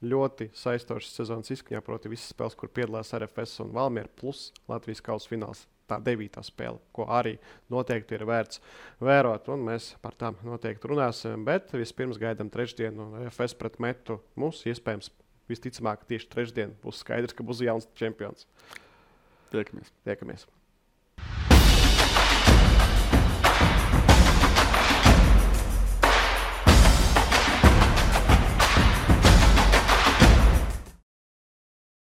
Ļoti saistošas sezonas izskaņā, proti visas spēles, kur piedalās RFS un Valmiera plus Latvijas kausa fināls. Tā 9. spēle, ko arī noteikti ir vērts vērot, un mēs par tām noteikti runāsim. Bet vispirms gaidām trešdienu RFS pret Metu. Mums iespējams visticamāk tieši trešdien būs skaidrs, ka būs jauns čempions. Tiekamies.